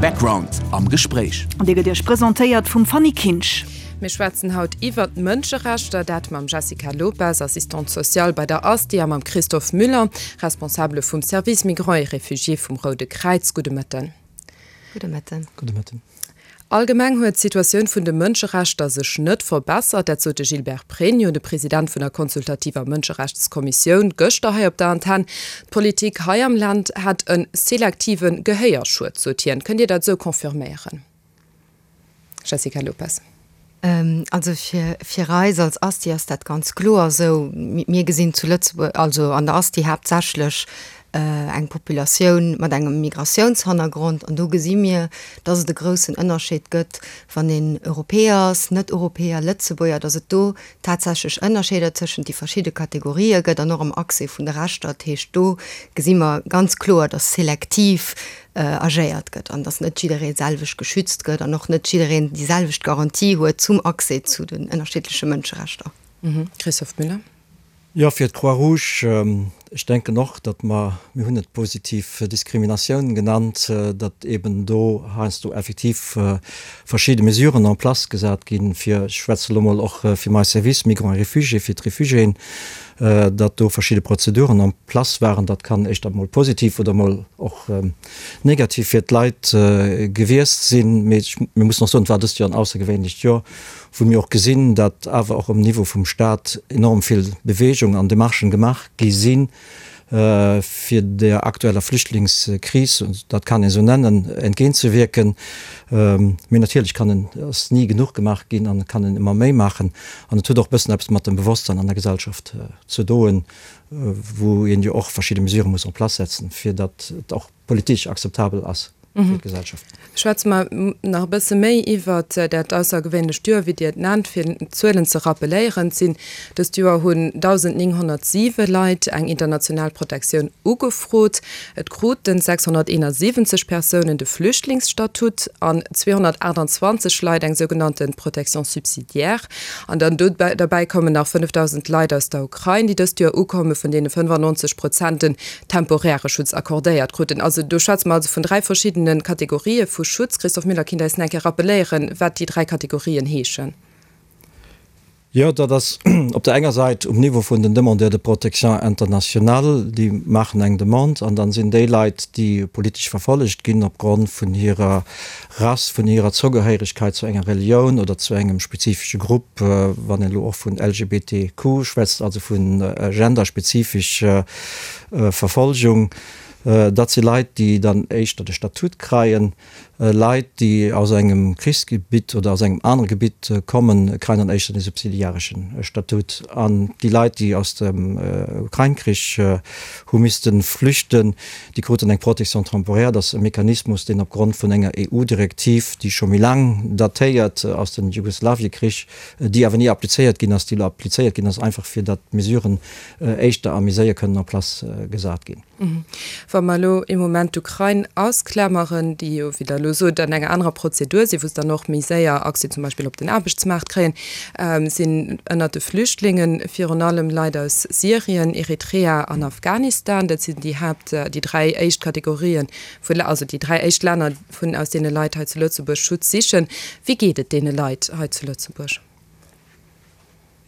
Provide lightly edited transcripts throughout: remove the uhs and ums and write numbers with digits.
Background am Gespréich. An dee gëtt Iech presentéiert vum Fanny Kinsch. Mir schwätzen haut iwwert d'Mënscherechter, dat mam Jessica Lopes, Assistante sociale bei der ASTI a mam Christophe Müller, Responsabele vum Service Migrants et Réfugiés vum Roude Kräiz. Gudde Mëtten. Gudde Mëtten. Gudde Mëtten. Allgemeng huet d'Situatioun vun de Mënscherechter sech net verbessert. Dat sot de Gilbert Pregno, de President vun der consultativer Mënscherechtskommissioun, gëschter hei op der Antenn. D'Politik hei am Land hätt e selektive Gehéierschued, sot hien. Kënnt Dir dat esou confirméieren, Jessica Lopes? Also fir, fir eis als Asti ass dat ganz kloer esou. Mir gesinn zu Lëtzebuerg, also an der Asti haaptsächlech eng Populatioun mat engem Migratiounshannergrond an do gesi mir, dass et e groussen Ënnerscheed gëtt, wann een Europäer ass, Net-Europäer, Lëtzebuerger, dass et do tatsächlech Ënnerscheeder tëschent déi verschidde Kategorië gëtt an och am Accès vun de Rechter. Dat heescht, do gesi mer ganz kloer, dass selektiv agéiert gëtt an dass net jidderee selwecht geschützt gëtt an och net jiddereen déi selwecht Garantie huet zum Accès zu den ënnerschiddleche Mënscherechter. Christophe Müller. Jo, fir d'Croix-Rouge, ech denken och, datt mer, mir hunn et positiv Diskriminatioun genannt, datt eeben do heiansdo effektiv verschidde Mesuren en place gesat ginn, fir, ech schwätze elo mol och fir mäi Service Migrants et Réfugiés, fir d'Refugiéen, datt do verschidde Prozeduren en place waren. Dat kann éischter mol positiv oder mol och negativ fir d'Leit gewiescht sinn. Mee mir mussen och soen, et war dëst Joer en aussergewéinlecht Joer, wou mir och gesinn, datt awer och um Niveau vum Stat enorm vill Bewegung an Demarchen gemaach gi sinn, fir der aktueller Flüchtlingskris, dat kann een esou nennen, entgéintzewierken. Mee natierlech kann en, ass ni genuch gemaach ginn an et kann een ëmmer méi maachen. An et huet och e bëssen eppes mat dem Bewosstsein an der Gesellschaft ze doen, wou een jo och verschidde Mesurë muss en place setzen, fir datt et och politesch akzeptabel ass fir d'Gesellschaft. Schwätze mer nach e bësse méi iwwert dat aussergewéinlecht Joer, wéi Dir et nennt. Fir d'Zuelen ze rappeléieren, et sinn dëst Joer hunn 1.907 Leit eng international Protektioun ugefrot. Et kruten 671 Persounen de Flüchtlingsstatut an 228 Leit eng sougenannte Protection subsidiaire. An dann dobäi kommen nach 5.000 Leit aus der Ukrain, déi dëst Joer ukommen, vun deene 95 Prozent den temporäre Schutz accordéiert kruten. Also do schwätze mer also vun dräi verschiddene Kategorië vu Schutz. Christophe Müller, kinnt eis nach eng Kéier rappeléieren, wat déi dräi Kategorien heeschen? Jo, dat ass op der enger Säit um Niveau vun den Demandeurs de protection internationale, déi maachen eng Demande an dann sinn déi Leit, déi politesch verfollegt ginn opgrond vun hirer Rass, vun hirer Zougehéieregkeit zu enger Relioun oder zu engem spezifesche Grupp, wann een elo och vun LGBTQ schwätzt, also vu genderspezifesch Verfolgung, dat si Leit, déi dann éischter de Statut kreien. Leit, déi aus engem Krichsgebitt oder aus engem anere Gebitt kommen, kreien dann éischter de subsidiaresche Statut. An déi Leit, déi aus dem Ukrain-Krich hu misste flüchten, Déi kruten eng Protection temporaire. Dat ass e Mechanismus, deen opgrond vun enger EU-Direktiv, déi scho méi laang datéiert aus dem Jugoslawiekrich, déi awer ni applizéiert ginn ass, déi elo applizéiert ginn ass, einfach fir datt d'Mesuren éischter a méi séier kënnen en place gesat ginn. Wa mer elo ee Moment d'Ukrain ausklameren, déi jo, wéi Der elo sot, an enger anerer Prozedur sinn, wou se dann och méi séier Accès zum Beispill op den Aarbechtsmaart kréien, sinn ënnert de Flüchtlinge virun allem Leit aus Syrien, Eritrea an Afghanistan. Dat sinn déi Haapt, déi dräi éischt Kategorien vu, also déi dräi éischt Länner, vun aus deene Leit hei zu Lëtzebuerg Schutz sichen. Wéi geet et deene Leit hei zu Lëtzebuerg?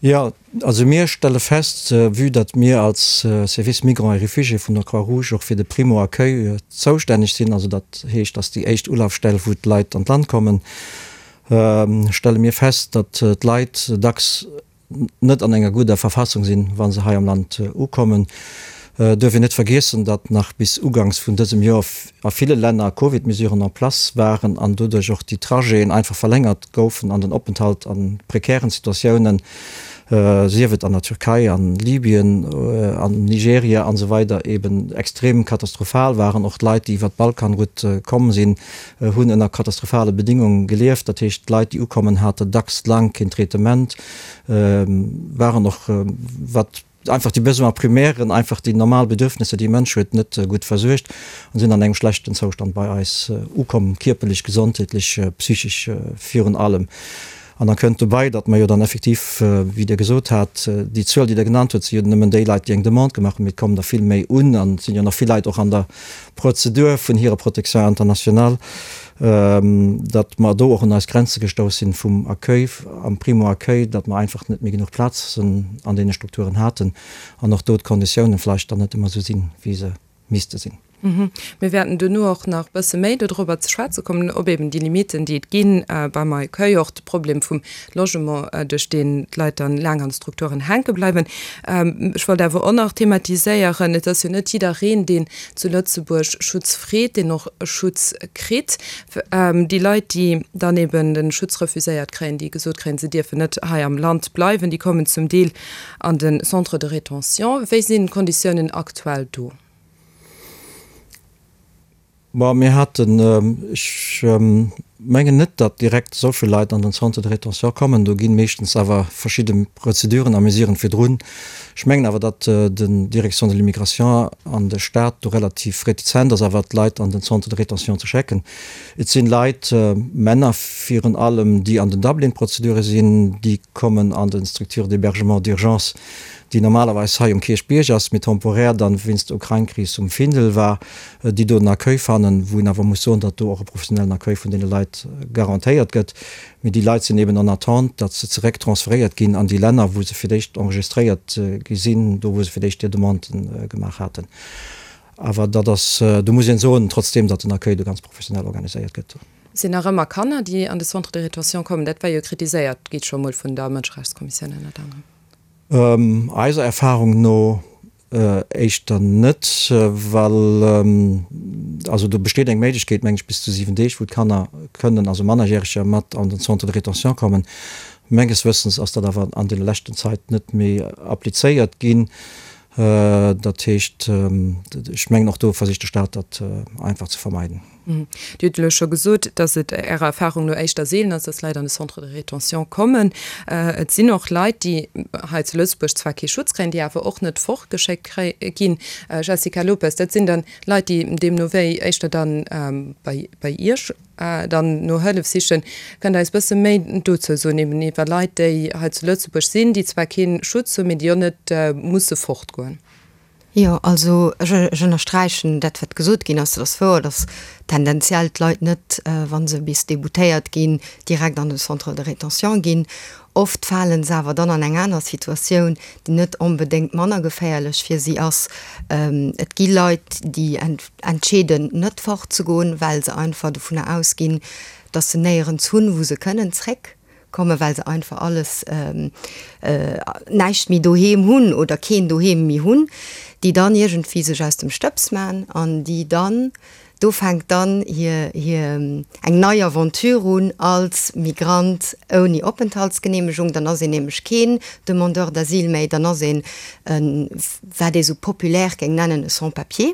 Jo, also mir stelle fest, vue datt mir als Service Migrants et Réfugiés vun der Croix-Rouge och fir de Primo-Accueil zoustänneg sinn, also dat heescht, datt déi éischt Ulafstell, wou d'Leit an d'Land kommen, stelle mir fest, datt d'Leit dacks net an enger gudder Verfassung sinn, wa se hei am Land ukommen. Et duerf een net vergiessen, datt nach bis uganks vun dësem Joer a ville Länner Covid-Mesuren en place waren an doduerch och déi Trajeten einfach verlängert goufen an den Openthalt a prekären Situatiounen, sief et an der Türkei, an Libyen, an Nigeria an esou weider eben extrem katastrophal waren. Och d'Leit, déi iwwer d'Balkanroute komm sinn, hunn ënner katastrophale Bedingunge gelieft. Dat heescht, d'Leit, déi ukommen, hate dacks laang keen Traitement, waren och, wat einfach déi Besoins primairen, einfach déi normal Bedürfnisser, déi e Mënsch huet, net gutt versuergt an sinn an engem schlechten Zoustand bei eis ukomm, kierperlech, gesondheetlech, psychesch virun allem. An da kënnt dobäi, datt mer jo dann effektiv, wéi Dir gesot hat, déi Zuel, déi Der genannt hutt, si jo nëmmen déi Leit, déi eng Demande gemaach hunn, mee et kommen der vill méi un an et sinn jo nach vill Leit och an der Prozedur vun hirer Protection internationale, datt mer do och un eis Grenze gestouss sinn vum Accueil, am Primo-Accueil, datt mer einfach net méi genuch Plazen an deene Strukturen haten an och do d'Konditiounen vläicht dann net ëmmer esou sinn, wéi se misste sinn. Mir wäerten duerno och nach e bësse méi dodrobber ze schwätze kommen, ob eben déi Limiten, déi et gi beim Accueil, och de Problem vum Logement, duerch deen d'Leit dann laang an de Strukturen hänke bleiwen. Ech wollt awer och nach thematiséieren, et ass jo net jiddereen, deen zu Lëtzebuerg Schutz freet, deen och Schutz kritt. Déi Leit, déi dann eben de Schutz refuséiert kréien, déi gesot kréien, se dierfen net hei am Land bleiwen, déi kommen zum Deel an de Centre de rétention. Wéi sinn d'Konditiounen aktuell do? Bon, mir haten, ech mengen net, datt direkt esou vill Leit an den Centre de rétention kommen. Do gi meeschtens awer verschidde Prozeduren a Mesuren virdrun. Ech mengen awer, datt den Direction de l'immigration an de Stat do relativ retizent ass, awer d'Leit an den Centre de rétention ze schecken. Et sinn Leit, Männer virun allem, déi an den Dublin-Prozedure sinn, déi kommen an den Structures d'hébergement d'urgence, déi normalerweis hei um Kierchbierg ass, mee temporär dann wéinst der Ukrain-Kris um Findel war, déi do den Accueil fannen, wou een awer muss soen, datt do och e professionellen Accueil vun deene Leit garantéiert gëtt. Mee déi Leit sinn eben en attente, datt se zeréck transferéiert ginn an déi Länner, wou se fir d'éischt enregistréiert gi sinn, do wou se fir d'éischt hir Demanden gemaach haten. Awer dat ass, do muss een soen, trotzdeem, datt den Accueil do ganz professionell organiséiert gëtt. Et sinn nach ëmmer Kanner, déi an de Centre de rétention kommen. Dat war jo kritiséiert gi scho mol vun der Mënscherechtskommissioun ënnert anerem. Eiser Erfahrung no éischter net, well also do besteet eng Méiglechkeet, meng ech, bis zu 7 Deeg, wou d'Kanner kënnen, also Mannerjäreger, mat an den Centre de rétention kommen. Menges Wëssens ass dat awer an deene leschten Zait net méi applizéiert ginn. Dat heescht, ech mengen och do versicht de Stat dat einfach ze vermeiden. Dir hutt elo scho gesot, dass et Ärer Erfahrung no éischter seelen ass, dass Leit an de Centre de rétention kommen. Et sinn och Leit, déi hei zu Lëtzebuerg zwar kee Schutz kréien, déi awer och net fortgeschéckt ginn. Jessica Lopes, dat sinn dann Leit, déi deemno wéi éischter dann bei Iech dann no Hëllef sichen. Kënnt Der eis bësse méi dozou soen, eben iwwer Leit, déi hei zu Lëtzebuerg sinn, déi zwar kee Schutz hunn, mee déi och net musse fortgoen? Jo, also ech ënnersträichen dat, wat gesot ginn ass. Et ass wouer, datt tendenziell d'Leit net, wa se bis déboutéiert ginn, direkt an de Centre de rétention ginn. Oft fale se awer dann an eng aner Situatioun, déi net onbedéngt manner geféierlech fir si ass. Et gi Leit, déi entscheeden, net fortzegoen, well se einfach dovunner ausginn, datt se néierens hunn, wou se kënnen zréck. Kommen, well se einfach alles, näischt méi doheem hunn oder keen Doheem méi hunn, déi dann iergendwéi sech aus dem Stëbs man an déi dann, do fänkt dann hir, hir eng nei Aventure un als Migrant ouni Openthaltsgeneemegung. Dann ass een nämlech keen Demandeur d'asile méi, dann ass een e, wat ee sou populaire géing nennen, e Sans-papier.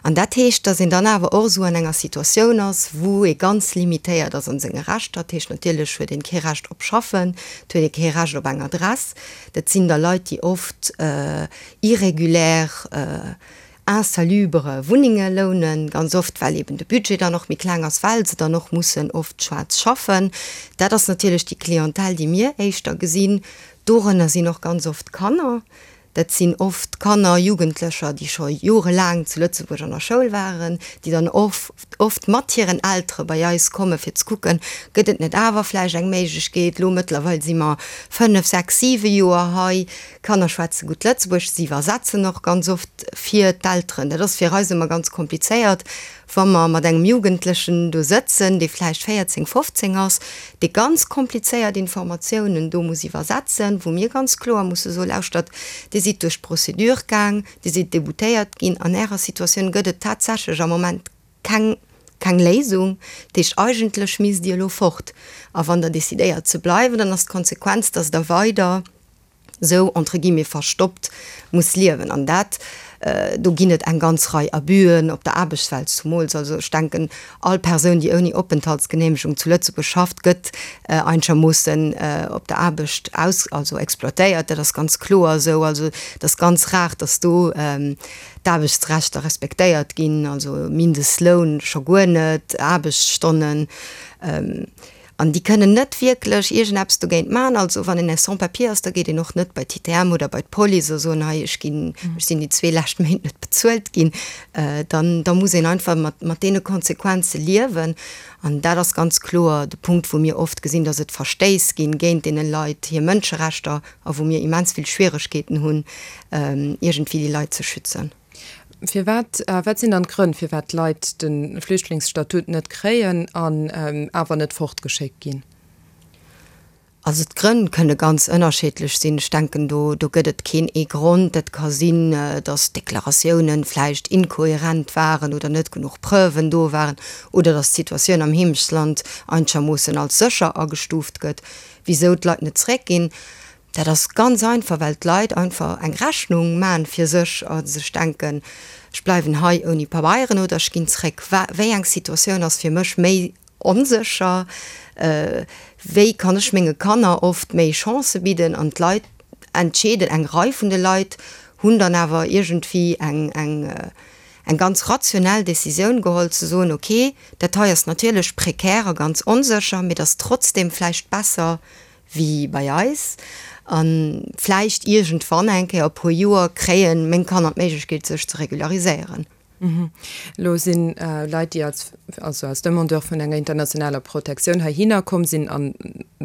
An dat heescht, dass een dann awer och esou an enger Situatioun ass, wou ee ganz limitéiert ass an senge Rechter. Dat heescht, natierlech huet een kee Recht op Schaffen, et huet ee kee Recht op eng Adress. Dat sinn da Leit, déi oft irrégulière, insalubre Wunnenge lounen, ganz oft, well eben de Budget dann och méi kleng ass, well se dann och mussen oft schwaarz schaffen. Dat ass natierlech déi Clientèle, déi mir éischter gesinn. Dorënner sinn och ganz oft Kanner. Dat sinn oft Kanner, Jugendlecher, déi scho jorelaang zu Lëtzebuerg an der Schoul waren, déi dann oft oft mat hiren Eltere bei eis komme fir ze kucken, gëtt et net awer vläicht eng Méiglechkeet. Elo mëttlerweil si mer 5, 6, 7 Joer hei. D'Kanner schwätze gutt Lëtzebuergesch, si iwwersetzen och ganz oft fir d'Elteren. Dat ass fir eis ëmmer ganz komplizéiert, wa mer mat engem Jugendlechen do sëtzen, dee vläicht 14, 15 ass, dee ganz komplizéiert Informatiounen do muss iwwersetzen, wou mir ganz kloer musse soen, Lauschtert, Dir sidd duerch d'Procédure gaang, Dir sidd déboutéiert ginn, an Ärer Situatioun gëtt et tatsächlech am Moment keng, keng Léisung. Dat heescht, eigentlech misst Dir elo fort. A wann Der decidéiert ze bleiwen, dann ass d'Konsequenz, dass Der weider sou entre guillemets verstoppt muss liewen. An dat, do ginn et eng ganz Rei Abüen op der Aarbechtswelt zumools. Also ech denken, all Persoun, déi ouni Openthaltsgenehmegung zu Lëtzebuerg schafft, gëtt einschermoossen op der Aarbecht aus, also exploitéiert. Dat ass ganz kloer esou. Also et ass ganz rar, datt do d'Aarbechtsrechter respektéiert ginn, also Mindestloun scho guer net, Aarbechtsstonnen. An déi kënnen net wierklech iergendeppes dogéint maachen. Also wann een Sans-papier ass, da geet een och net bei d'ITM oder bei d'Police a soen, hei ech ginn, ech sinn déi zwee lescht Méint net bezuelt ginn. Dann, da muss een einfach mat, mat deene Konsequenze liewen. An dat ass ganz kloer de Punkt, wou mir oft gesinn, datt et Verstéiss ginn géint deene Leit hir Mënscherechter a wou mir immens vill Schwieregkeeten hunn, iergendwéi déi Leit ze schützen. Firwat, wat sinn dann d'Grënn, firwat d'Leit de Flüchtlingsstatut net kréien an awer net fortgeschéckt ginn? Also d'Grënn kënne ganz ënnerschiddlech sinn. Ech denken, do, do gëtt et keen ee Grond. Et ka sinn, datt d'Deklaratiounen vläicht inkohärent waren oder net genuch Preuven do waren oder datt d'Situatioun am Heemechtsland einchermoossen als sécher agestuuft gëtt. Wisou d'Leit net zréckginn, Dat ass ganz einfach, well d'Leit einfach eng Rechnung man fir sech a sech denken, ech bleiwen hei ouni Pabeieren oder ech ginn zréck. Wéi eng Situatioun ass fir mech méi onsécher? Wéi kann ech menge Kanner oft méi Chancë bidden? An d'Leit entscheeden, eng Rei vun de Leit hunn dann awer iergendwéi eng, eng, eng ganz rationell Decisioun geholl ze soen, okay, dat hei ass natierlech prekär a ganz onsécher, mee et ass trotzdem vläicht besser wéi bei eis, a vläicht iergendwann eng Kéier, e puer Joer, kréien meng Kanner d'Méiglechkeet sech ze regulariséieren. Elo si Leit, déi als, also als Demandeur vun enger internationaler Protektioun heihinner komm sinn an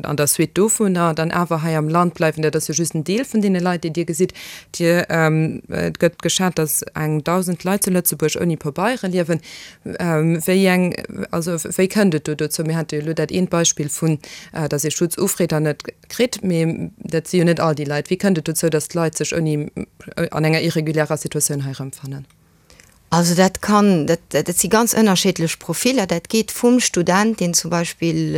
an der Suite dovunner dann awer hei am Land bleiwen. Dat ass jo just en Deel vun deene Leit, déi Dir gesitt. Dir, et gëtt geschat, datt eng 1.000 Leit zu Lëtzebuerg ouni Pabeiere liewen. Wéi eng, also wéi kënnt et do dozou? Mir hate jo elo dat eent Beispill vun, datt ee Schutz ufreet an net kritt, mee dat si jo net all déi Leit. Wéi kënnt et dozou, datt d'Leit sech ouni, an enger irregulärer Situatioun hei erëmfannen? Also dat kann, dat, dat si ganz ënnerschiddlech Profiller. Dat geet vum Student, deen zum Beispill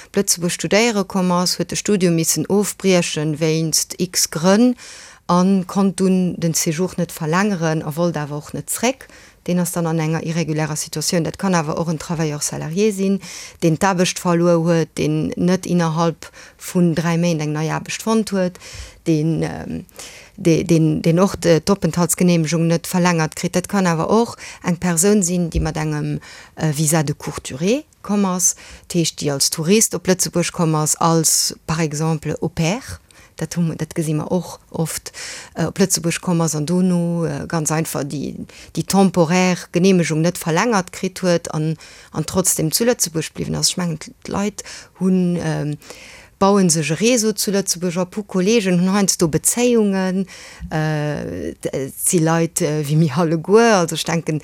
op Lëtzebuerg studéiere komm ass, huet de Studium missen ofbriechen wéinst x-Grënn a konnt dunn den Séjour net verlängeren a wollt awer och net zréck. Deen ass dann an enger irregulärer Situatioun. Dat kann awer och en Travailleur salarié sinn, deen d'Aarbecht verluer huet, deen net innerhalb vun 3 Méint eng nei Aarbecht fonnt huet, deen, deen och d'Openthaltsgeneemegung net verlängert kritt. Dat kann awer och eng Persoun sinn, déi mat engem Visa de courte durée komm ass, dat heescht déi als Tourist op Lëtzebuerg komm ass, als par exemple Au pair, dat hu dat gesi mer och oft, op Lëtzebuerg komm ass an dono ganz einfach déi déi temporaire Geneemegung net verlängert kritt huet an an trotzdem zu Lëtzebuerg bliwwen ass. Ech mengen d'Leit hunn bauen sech e Réseau zu Lëtzebuerg op, hu Kollegen, hunn heiansdo Bezéiungen, et si Leit wéi mir alleguer, also ech denken,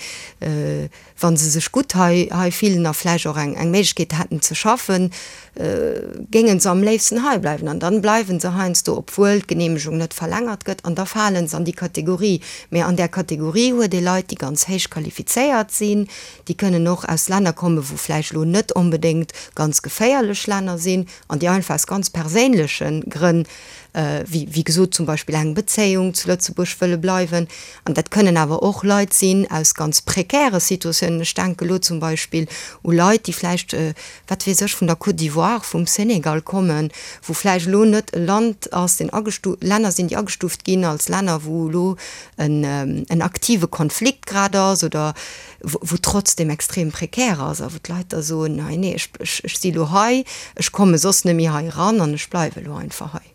wa se sech gutt hei hei fillen a vläicht och eng eng Méiglechkeet hätten ze schaffen, géinge se am léifsten hei bleiwen. An dann bleiwe se heiansdo, obwuel d'Geneemegung net verlängert gëtt, an da fale se an déi Kategorie. Mä an där Kategorie huet ee Leit, déi ganz héich qualifizéiert sinn, déi kënnen och aus Länner kommen, wou vläicht elo net onbedéngt ganz geféierlech Länner sinn, an déi einfach aus ganz perséinleche Grënn, wéi wéi gesot zum Beispill eng Bezéiung, zu Lëtzebuerg wëlle bleiwen. An dat kënnen awer och Leit sinn aus ganz prekäre Situatiounen. Ech denke elo zum Beispill u Leit, déi vläicht, wat weess ech, vun der Côte d'Ivoire, vum Senegal kommen, wou vläicht elo net e Land ass, deen agestu Länner sinn, déi agestuuft ginn als Länner, wou elo en en aktive Konflikt grad ass oder wou trotzdem extrem prekär ass a wou d'Leit da soen, hei nee, ech ech si lo hei, ech komme soss net méi hei eran an ech bleiwe lo einfach hei.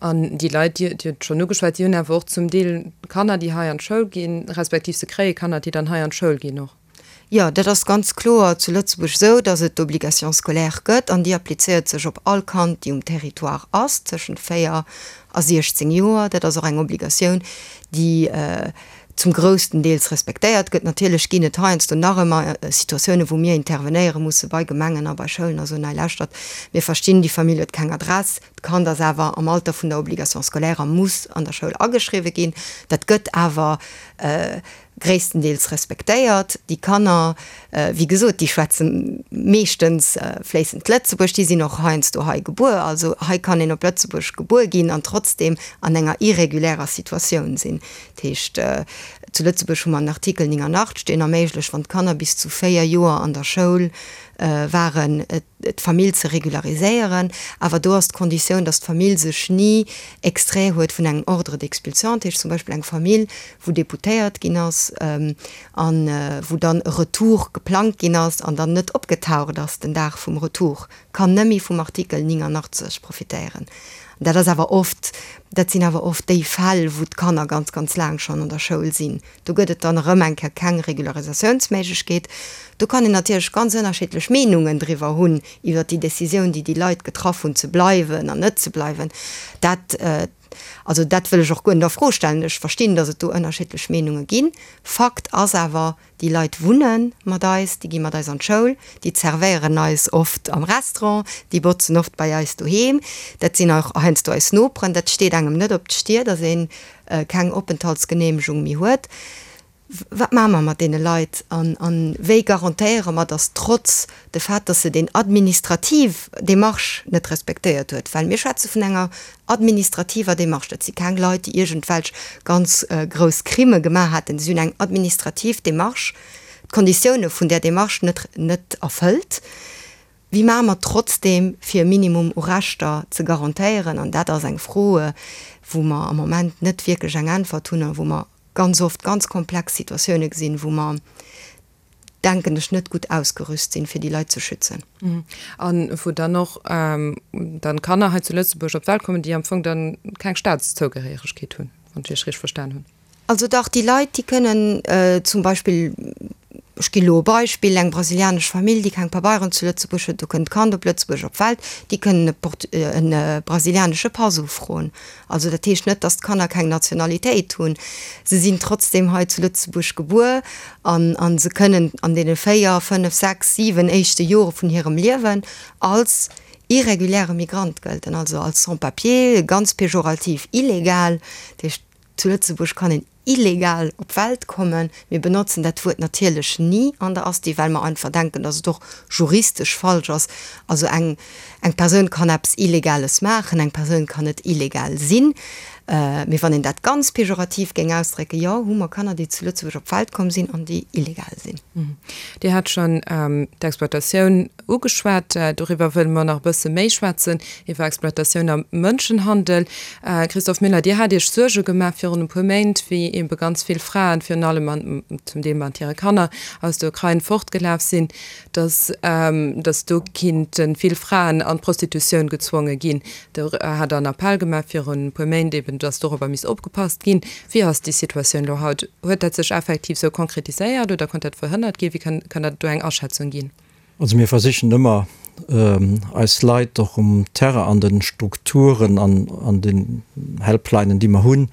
An déi Leit, Dir hutt et schonn ugeschwat, déi hunn awer och zum Deel Kanner, déi hei an d'Schoul ginn, respektiv se kréie Kanner, déi dann hei an d'Schoul ginn och. Jo, dat ass ganz kloer zu Lëtzebuerg esou, datt et d'Obligation scolaire gëtt an déi applizéiert sech op all Kand, déi um Territoire ass, tëschent 4 a 16 Joer. Dat ass och eng Obligatioun, déi zum groussten Deels respektéiert gëtt. Natierlech ginn et heiansdo nach ëmmer Situatiounen, wou mir intervenéiere musse bei Gemengen a bei Schoulen a soen, hei lauschtert, mir verstinn, déi Famill huet keng Adress, d'Kand ass awer am Alter vun der Obligation scolaire a muss an der Schoul ageschriwwe ginn. Dat gëtt awer gréisstendeels respektéiert. Déi Kanner, wéi gesot, déi schwätze meeschtens fléissend Lëtzebuerg, déi sinn och heiansdo hei gebuer. Also hei kann een op Lëtzebuerg gebuer ginn an trotzdem an enger irregulärer Situatioun sinn. Dat heescht, zu Lëtzebuerg hu mer en Artikel 89, deen erméiglecht, wann d'Kanner bis zu 4 Joer an der Schoul waren, d'Famill ze regulariséieren. Awer do ass d'Konditioun, datt d'Famill sech ni extrait huet vun engem Ordre d'expulsion, dat heescht zum Beispill eng Famill, wou déboutéiert ginn ass a wou dann e Retour geplangt ginn ass an dann net opgetaucht ass den Dag vum Retour, kann nëmme vum Artikel 89 profitéieren. Dat ass awer oft, dat sinn awer oft déi Fäll, wou d'Kanner ganz, ganz laang schonn an der Schoul sinn. Do gëtt et dann erëm eng Kéier keng Regularisatiounsméiglechkeet. Do kann een natierlech ganz ënnerschiddlech Meenungen driwwer hunn, iwwert déi Décisioun, déi déi Leit getraff hunn, ze bleiwen an net ze bleiwen. Dat, also dat wëll ech och guer net a Fro stellen. Ech verstinn, datt et do ënnerschiddlech Meenunge ginn. Fakt ass awer, Déi Leit wunne mat eis, déi gi mat eis an d'Schoul, déi zerwéieren eis oft am Restaurant, déi botzen oft bei eis doheem. Dat sinn och heiansdo eis Noperen. Dat steet engem net op d'Stier, datt ee keng Openthaltsgeneemegung méi huet. Wat maache mer mat deene Leit an wéi garantéiere mer, datt trotz de Fait, datt se deen administrativ Démarche net respektéiert huet, well mir schwätze vun enger administrativer Démarche, dat si keng Leit, déi iergendwelch ganz grouss Crime gemaach hätten, si hunn eng administrativ Démarche, d'Konditioune vun där Démarche net net erfëllt, wéi maache mer trotzdeem, fir e Minimum u Rechter ze garantéieren? An dat ass eng Fro, wou mer am Moment net wierklech eng Äntwert hunn a wou mer ganz oft ganz komplex Situatioune gesinn, wou mer denken ech, net gutt ausgerüst sinn, fir déi Leit ze schützen. A wou dann och dann Kanner hei zu Lëtzebuerg op d'Welt kommen, déi am Fong dann keng Staatszougehéieregkeet hunn, wann ech Iech richteg verstan hunn. Also dach, déi Leit, déi kënnen zum Beispill, ech ginn elo e Beispill, eng brasilianesch Famill, déi keng Pabeieren zu Lëtzebuerg huet, do kënnt d'Kand op Lëtzebuerg op d'Welt, déi kënnen e brasilianesche Pass ufroen. Also dat heescht net, dass d'Kanner keng Nationalitéit hunn. Se sinn trotzdem hei zu Lëtzebuerg gebuer an a se kënnen an deene 4, 5, 6, 7 éischte Jore vun hirem Liewen als irreguläre Migrant gëlten, also als Sans-papier, ganz pejorativ illegal. Dat heescht, zu Lëtzebuerg kann een illegal op d'Welt kommen. Mir benotzen dat Wuert natierlech ni an der Asti, well mer einfach denken, dass et och juristesch falsch ass. Also eng, eng Persoun kann eppes Illegales maachen, eng Persoun kann net illegal sinn. Mee wann een dat ganz pejorativ géing ausdrécken, jo, hu mer Kanner, déi zu Lëtzebuerg op d'Welt komm sinn an déi illegal sinn. Dir hat schonn d'Exploitatioun ugeschwat. Doriwwer wëlle mer nach e bësse méi schwätzen, iwwer Exploitatioun a Mënschenhandel. Christophe Müller, Dir hat Iech Suerge gemaach virun e puer Méint, wéi ebe ganz vill Fraen, virun allem an zum Deel mat hire Kanner, aus der Ukrain fortgelaf sinn, datt datt do kinnte vill Fraen an d'Prostitutioun gezwonge ginn. Do hat Der en Appell gemaach virun e puer Méint eben, datt dorobber misst opgepasst ginn. Wéi ass déi Situatioun elo haut? Huet dat sech effektiv esou konkretiséiert oder konnt dat verhënnert ginn? Wéi kënnt Der do eng Aschätzung ginn? Also mir versichen ëmmer eis Leit och um Terrain an de Strukturen an an den Helplinen déi mer hunn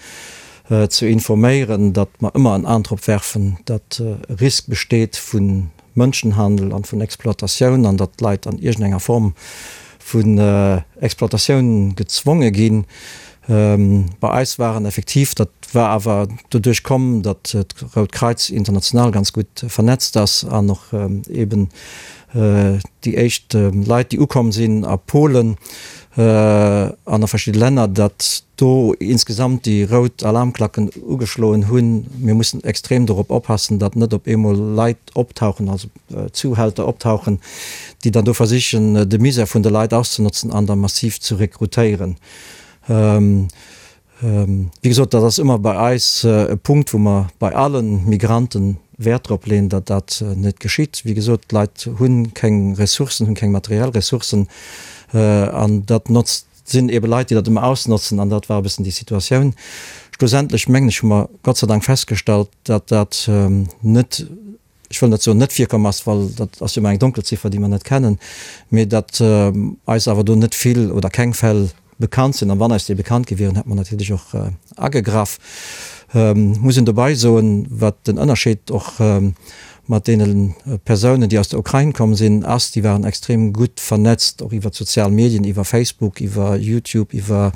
ze informéieren, datt mer ëmmer en An drop werfen, datt e Risk besteet vu Mënschenhandel an vun Exploitatioun an datt d'Leit an iergendenger Form vun Exploitatioun gezwonge ginn. Bei eis waren effektiv, dat war awer doduerch komm, datt d'Rout Kreiz international ganz gutt vernetzt ass an och eeben déi éischt Leit, déi ukomm sinn a Polen an a verschidde Länner, datt do insgesamt déi rout Alarmklacken ugeschloen hunn. Mir mussen extrem dorop oppassen, datt net op eemol Leit optauchen, also Zuhälter optauchen, déi dann do versichen, de Misär vun de Leit auszenotzen an da massiv ze rekrutéieren. Wéi gesot, dat ass ëmmer bei eis e Punkt, wou mer bei alle Migranten Wäert drop leeën, datt dat net geschitt. Wéi gesot, d'Leit hu keng Ressourcen, hunn keng materiell Ressourcen an dat notzt, sinn ebe Leit, déi dat ëmmer ausnotzen an dat war e bëssen déi Situatioun. Schlussendlech mengen ech, hu mer Gott sei Dank festgestallt, datt dat net, ech wëll net soen net virkomm ass, well dat ass jo ëmmer eng Donkelziffer, déi mer net kennen, mee datt eis awer do net vill oder keng Fäll bekannt sinn. An wann eis déi bekannt gi wieren, hätt mer natierlech och agegraff. Muss een dobei soen, wat den Ënnerscheed och mat deene Persounen, déi aus der Ukrain komm sinn, ass, déi waren extrem gutt vernetzt, och iwwer d'sozial Medien, iwwer Facebook, iwwer YouTube, iwwer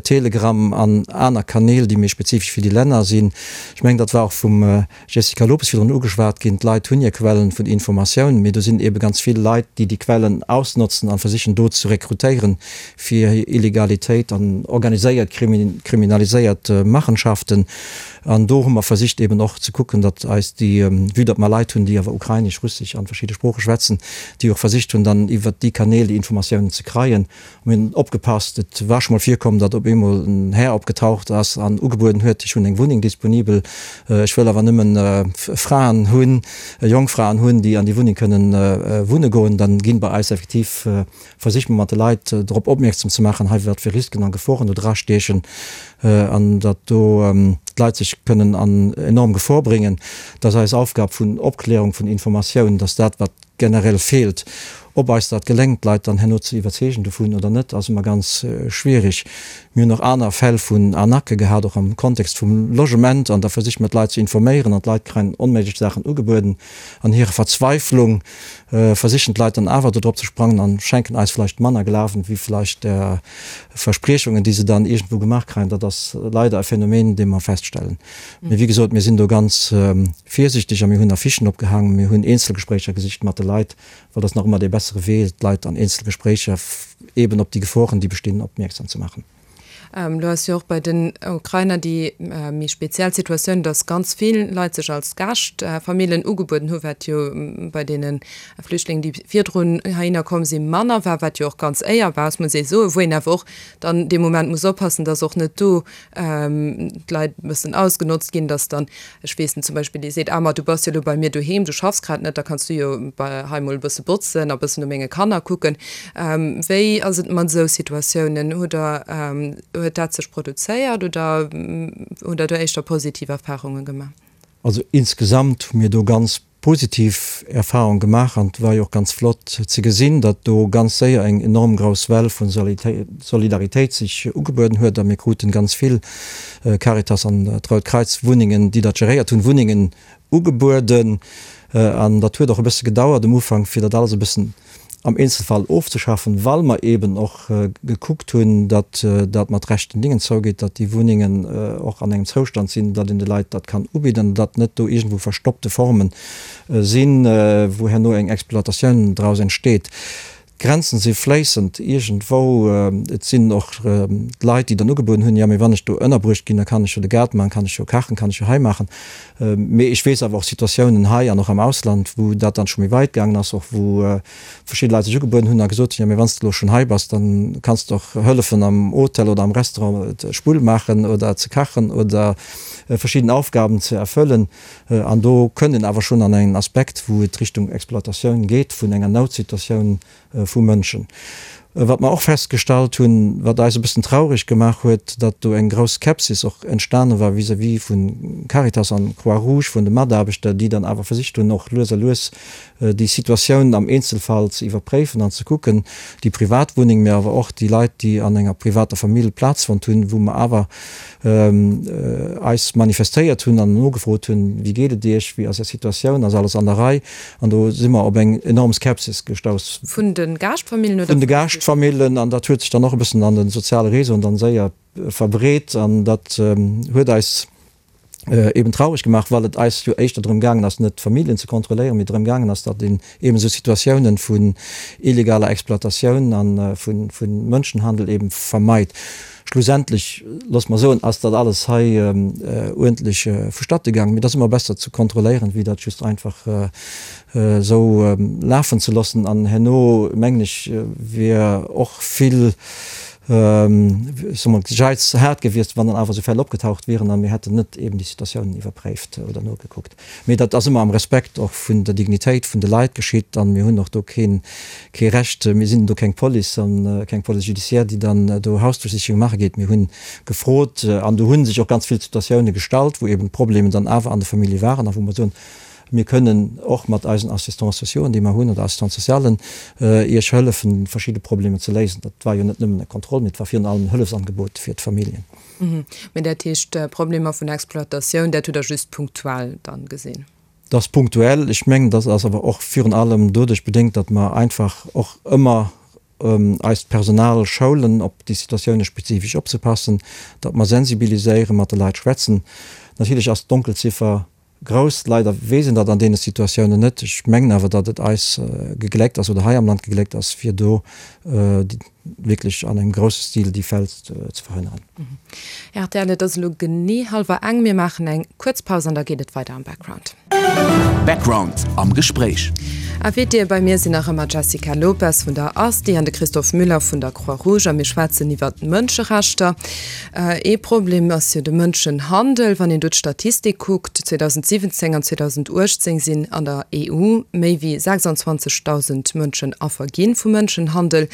Telegram an aner Kanäl, déi méi spezifesch fir déi Länner sinn. Ech mengen, dat war och vum Jessica Lopes virdrun ugeschwat ginn, D'Leit hunn hir Quellen vun Informatioun, mee do sinn eebe ganz vill Leit, déi déi Quellen ausnotzen a versichen do ze rekrutéieren fir hir Illegalitéit an organiséiert kriminaliséiert Machenschaften. An do hu mer versicht eeben och ze kucken, datt eis déi, vue datt mer Leit hunn. Leit hunn, déi awer Ukrainesch, Russesch an verschidde Sprooche schwätzen, déi och versicht hunn, dann iwwert déi Kanäl déi Informatiounen ze kreien. Mir hunn opgepasst, et war scho mol virkomm, datt op eemol en Här opgetaucht ass an ugebueden huet, ech hunn eng Wunneng disponibel, ech wëll awer nëmmen Fraen hunn, jonk Fraen hunn, déi an déi Wunneng kënnen wunne goen. Dann ginn bei eis effektiv, versicht mer mat de Leit drop opmierksam ze maachen, hei wat fir Risken a Geforen do dra stiechen an datt do d'Leit sech kënnen an enorm Gefor bréngen. Dat ass eis Aufgab vun Opklärung, vun Informatioun, datt dat wat generell feelt. Ob eis dat geléngt, d'Leit dann herno ze iwwerzeegen dovun oder net, ass ëmmer ganz schwierig. Mir hunn och aner Fäll vun Arnaquë gehat, och am Kontext vum Logement, an da versicht mer d'Leit ze informéieren an d'Leit kréien onméiglech Saachen ugebueden. An hirer Verzweiflung versichen d'Leit dann awer do drop ze sprangen an schenken eis vläicht manner Glawen, wéi vläicht der Verspriechungen, déi se dann iergendwou gemaach kréien. Dat ass leider e Phänomen, dee mer feststellen. Mee wéi gesot, mir sinn do ganz virsichteg a mir hunn Affichen opgehaangen, mir hunn Eenzelgespréicher gesicht mat de Leit, well dat ass nach ëmmer dee bessere Wee, d'Leit an Eenzelgespréicher eeben op déi Geforen, déi bestinn, opmierksam ze maachen. Elo ass jo och bei den Ukrainer déi méi speziell Situatioun, datt ganz vill Leit sech als Gaaschtfamillen ugebueden hu, wat jo bei deene Flüchtlingen, déi virdrun heihinner komm sinn, manner war, wat jo och ganz éierbar ass, muss ee soen, wou een awer och dann dee Moment muss oppassen, datt och net do d'Leit e bëssen ausgenotzt ginn, dass dann, ech weess net, zum Beispill ee seet, ah ma du bass jo elo bei mir doheem, du schaffs grad net, da kanns du jo bei hei mol e bësse botzen a bëssen no menge Kanner kucken. Wéi ass et mat esou Situatiounen? Hutt Der, huet dat sech produzéiert oder hutt Der do éischter positiv Erfarunge gemaach? Also insgesamt hu mir do ganz positiv Erfahrung gemaach an et war jo och ganz flott ze gesinn, datt do ganz séier eng enorm grouss Well vu Solidaritéit sech ugebueden huet a mir kruten ganz vill Caritas an d'Rout Kreiz Wunnengen, déi dat geréiert hunn, Wunnengen ugebueden an dat huet och e bësse gedauert um Ufank fir dat alles e bëssen am Eenzelfall ofzeschaffen, well mer eeben och gekuckt hunn, datt dat mat rechten Dingen zougeet, datt déi Wunnengen och an engem Zoustand sinn, datt een de Leit dat kann ubidden, datt net do iergendwou verstoppte Forme sinn, wou herno eng Exploitatioun draus entsteet. D'Grenzen si fléissend iergendwou. Et sinn och d'Leit, déi dann ugebueden hunn, jo, mee wann ech do ënnerbruecht ginn, da kann ech jo de Gaart maachen, kann ech jo kachen, kann ech jo hei maachen. Mee ech weess awer och Situatiounen hei an och am Ausland, wou dat dann scho méi weit gaangen ass, och wou verschidde Leit sech ugebueden hunn a gesot hunn, jo mee wann s de elo schonn hei bass, da kanns de och hëllefen am Hotel oder am Restaurant d'Spull maachen oder ze kachen oder verschidden Aufgaben ze erfëllen. An do kënnt een awer schonn an en Aspekt, wou et Richtung Exploitatioun geet vun enger Noutsituatioun vu Mënschen. Wat mer och festgestallt hunn, wat eis e bëssen traureg gemaach huet, datt do eng grouss Skepsis och entstane war vis-à-vis vu Caritas an Croix-Rouge, vun de Mataarbechter, déi dann awer versicht hunn, och lues a lues déi Situatioun am Eenzelfall ze iwwerpréifen an ze kucken, déi privat Wunneng, mä awer och déi Leit, déi an enger privater Famill Plaz fonnt hunn, wou mer awer eis manifestéiert hunn an nogefrot hunn, Wéi geet et Iech, wéi ass Är Situatioun, ass alles an der Rei? An do si mer op eng enorm Skepsis gestouss. Vun de Gaaschtfamillen oder? Vun de Gaaschtfamillen. An dat huet sech dann och e bëssen an de soziale Réseauen dann séier verbreet. An dat huet eis eben traureg gemaach, well et eis jo éischter drëm gaangen ass, net d'Familljen ze kontrolléieren, mee drëm gaangen ass, datt een eben esou Situatiounen vun illegaler Exploitatioun a vu Mënschenhandel eben vermeit. Schlussendlech, loosse mer soen, ass dat alles hei uerdentlech vustatte gaangen. Mee et ass ëmmer besser ze kontrolléieren, wéi dat just einfach esou lafen ze loossen. An herno, mengen ech, wier och vill, ech soe mol, Geiz haart gewiescht, wann dann awer esou Fäll opgetaucht wieren a mir hätten net eben déi Situatiounen iwwerpréift oder nogekuckt. Mee dat ass ëmmer am Respekt och vun der Dignitéit vun de Leit geschitt an mir hunn och do keen, kee Recht, mir sinn do keng Police an keng Police judiciaire, déi dann do Hausdurchsichung maache geet. Mir hunn gefrot an do hu sech och ganz vill Situatioune gestallt, wou eben d'Problemen dann awer an de Famillje waren a wou mer soen, mir kënnen och mat eisen Assistants sociauxen, déi mer hunn, oder Assistants socialen, Iech hëllefen, verschidde Problemer ze léisen. Dat war jo net nëmmen e Contrôle, mee et war virun allem en Hëllefsangebot fir d'Familljen. Mee dat heescht, Problemer vun Exploitatioun, dat hutt Der just punktuell dann gesinn? Dat ass punktuell. Ech mengen, dat ass awer och virun allem doduerch bedéngt, datt mer einfach och ëmmer eist Personal schoulen, op déi Situatioune spezifesch opzepassen, datt mer sensibiliséieren, mat de Leit schwätzen. Natierlech ass d'Donkelziffer Grouss. Leider weess een dat an deene Situatiounen net. Ech mengen awer, datt et eis gegléckt ass oder hei am Land gegléckt ass, fir do. wierklech an engem grousse Stil déi Fäll ze verhënneren. Rtl, Et ass elo genee hallwer eng. Mir maachen eng kuerz Paus an da geet et weider am Background. Background am Gespréich. Invitée bei mir sinn nach ëmmer d'Jessica Lopes vun der Asti an de Christophe Müller vun der Croix-Rouge a mir schwätzen iwwer d'Mënscherechter. Ee Problem ass jo de Mënschenhandel. Wann een do d'Statistik kuckt, 2017 an 2018 sinn an der EU méi wéi 26.000 Mënschen Affer gi vu Mënschenhandel.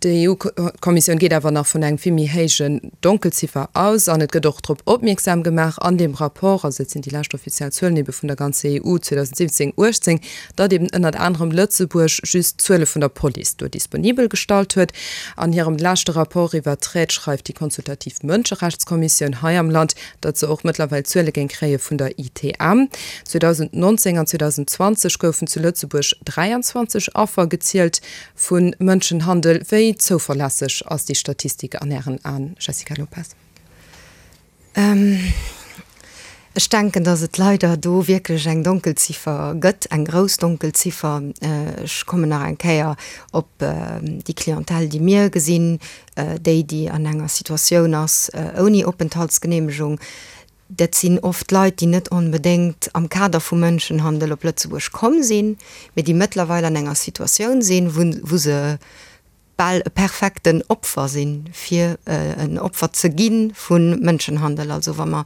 D'EU-Kommissioun geet awer nach vun engem vill méi héijen Donkelziffer aus an et gëtt och drop opmierksam gemaach an deem Rapport, also dat sinn déi lescht offiziell Zuelen ebe vun der ganzer EU 2017, 18, datt eben ënnert anerem Lëtzebuerg just d'Zuele vun der Police do disponibel gestallt huet. An hirem leschte Rapport iwwert d'Traite schreift déi consultativ Mënscherechtskommissioun hei am Land, datt se och mëttlerweil Zuele géing kréie vun der ITM. 2019 an 2020 goufen zu Lëtzebuerg 23 Affer gezielt Vu Mënschenhandel. Wéi zouverlässeg ass déi Statistik an Ären Aen, Jessica Lopes? Ech denken, datt et leider do wierklech eng Donkelziffer gëtt, eng grouss Donkelziffer. Ech kommen nach eng Kéier op déi Clientèle, déi mir gesinn, déi, déi an enger Situatioun ass ouni Openthaltsgeneemegung. Dat sinn oft Leit, déi net onbedéngt am Kader vum Mënschenhandel op Lëtzebuerg komm sinn, mee déi mëttlerweil an enger Situatioun sinn, wou se bal e perfekten Opfer sinn, fir en Opfer ze gi vu Mënschenhandel. Also wa mer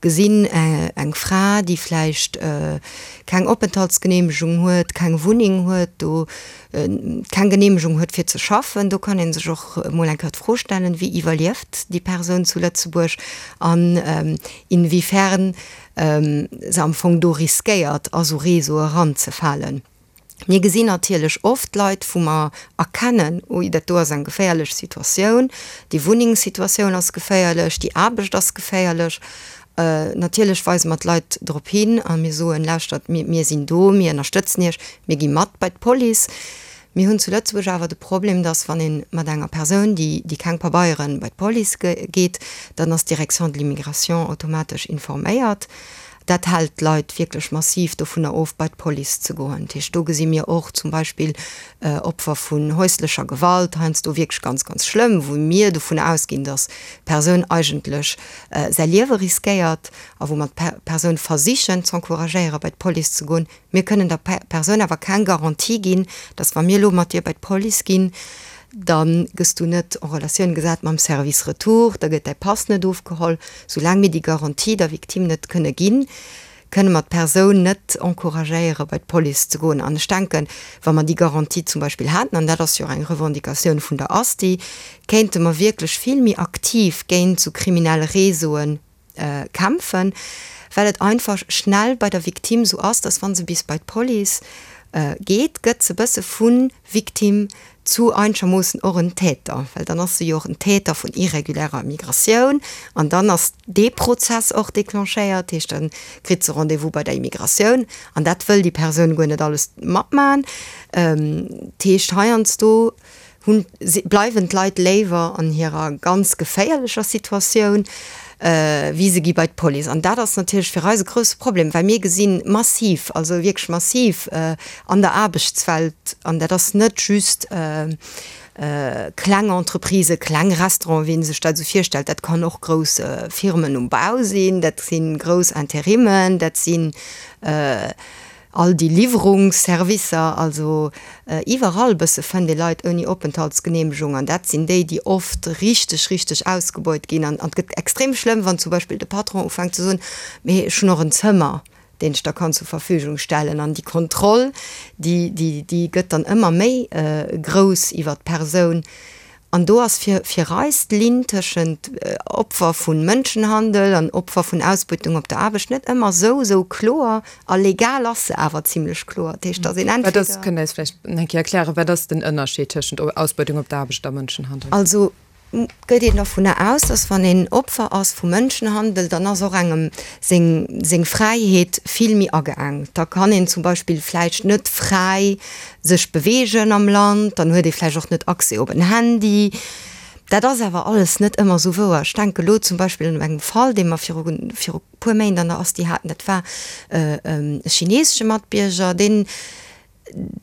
gesinn, eng Fra, déi vläicht keng Openthaltsgeneemegung huet, keng Wunneng huet, do keng Geneemegung huet fir ze schaffen, do kann ee sech och emol eng Kéier d'Fro stellen, wéi iwwerlieft déi Persoun zu Lëtzebuerg an inwiefern se am Fong do riskéiert a sou Réseaue eranzefalen. Mir gesinn natierlech oft Leit, wou mer erkennen, ui dat do ass eng geféierlech Situatioun, déi Wunnengssituatioun ass geféierlech, déi Aarbecht ass geféierlech. Natierlech weise mer d'Leit drop hin a mir soen, Lauschtert, mir sinn do, mir ënnerstëtzen Iech, mir gi mat bei d'Police. Mir hunn zu Lëtzebuerg awer de Problem, dass wann ee mat enger Persoun, déi keng Pabeieren, bei d'Police geet, dann ass d'Direction de l'immigration automatesch informéiert. Dat hält d'Leit wierklech massiv dovunner of, bei d'Police ze goen. Dat heescht, do gesi mir och zum Beispill Opfer vun häuslecher Gewalt, heiansdo wierklech ganz, ganz schlëmm, wou mir dovunner ausginn, dass d'Persoun eigentlech säi Liewe riskéiert a wou mer d'Persoun versichen z'encouragéieren, bei d'Police ze goen. Mir kënnen der Persoun awer keng Garantie ginn, dass wa mir elo mat dir bei d'Police ginn, da gëss du net en Relatioun gesat mam Service Retour, da gëtt däi Pass net ofgeholl. Soulaang mir déi Garantie der Victime net kënne ginn, kënne mer d'Persoun net encouragéieren, bei d'Police ze goen. An ech denken, wa mer déi Garantie zum Beispill hätten, an dat ass jo och eng Revendicatioun vun der ASTI, kéinte mer wierklech vill méi aktiv géint esou kriminell Réseaue kämpfen, well et einfach schnell bei der Victime esou ass, dass wa se bis bei d'Police geet, gëtt se e bësse vu Victime zu einschermoossen och en Täter, well dann ass se jo och en Täter vun irregulärer Migratioun an dann ass dee Prozess och déclenchéiert, dat heescht, da kritt se Rendez-vous bei der Immigratioun an dat wëll déi Persoun guer net alles matmachen. Dat heescht, heiansdo hunn, bleiwen d'Leit léiwer an hirer ganz geféierlecher Situatioun, wéi se gi bei d'Police. An dat ass natierlech fir eis e grousse Problem, well mir gesinn massiv, also wierklech massiv an der Aarbechtswelt, an dat ass net just kleng Entreprisen, kleng Restauranten, wéi ee sech dat esou virstellt, dat kann och grouss Firmen um Bau sinn, dat si grouss Interimmen, dat sinn all déi Liwwerungsservicer, also iwwerall bësse fënnt ee Leit ouni Openthaltsgeneemegung an dat sinn déi, déi oft richteg, richteg ausgebeut ginn. An et gëtt extrem schlëmm, wann zum Beispill de Patron ufänkt ze soen, mee ech hunn och en Zëmmer, deen ech der kann zur Verfügung stellen. An déi Kontroll, déi, déi, déi gëtt dann ëmmer méi grouss iwwert d'Persoun. An do ass fir, fir eis d'Linn tëschent Opfer vu Mënschenhandel an Opfer vun Ausbeutung op der Aarbecht net ëmmer esou, esou kloer. A legal ass se awer zimlech kloer. Dat heescht, dass een entweder. Wat ass, kënnt Der eis vläicht eng Kéier erklären, wat ass den Ënnerscheed tëschent Ausbeutung op der Aarbecht a Mënschenhandel? Also gëtt een dervunner aus, dass wann een Opfer ass vu Mënschenhandel, dann ass och engem seng, seng Fräiheet vill méi ageengt. Da kann een zum Beispill vläicht net fräi sech beweegen am Land, dann huet ee vläicht och net Accès op en Handy. Dat ass awer alles net ëmmer esou wouer. Ech denke elo zum Beispill un engem Fall, dee mer viru, viru puer Méint an der Asti haten, dat war e chinesesche Matbierger, deen,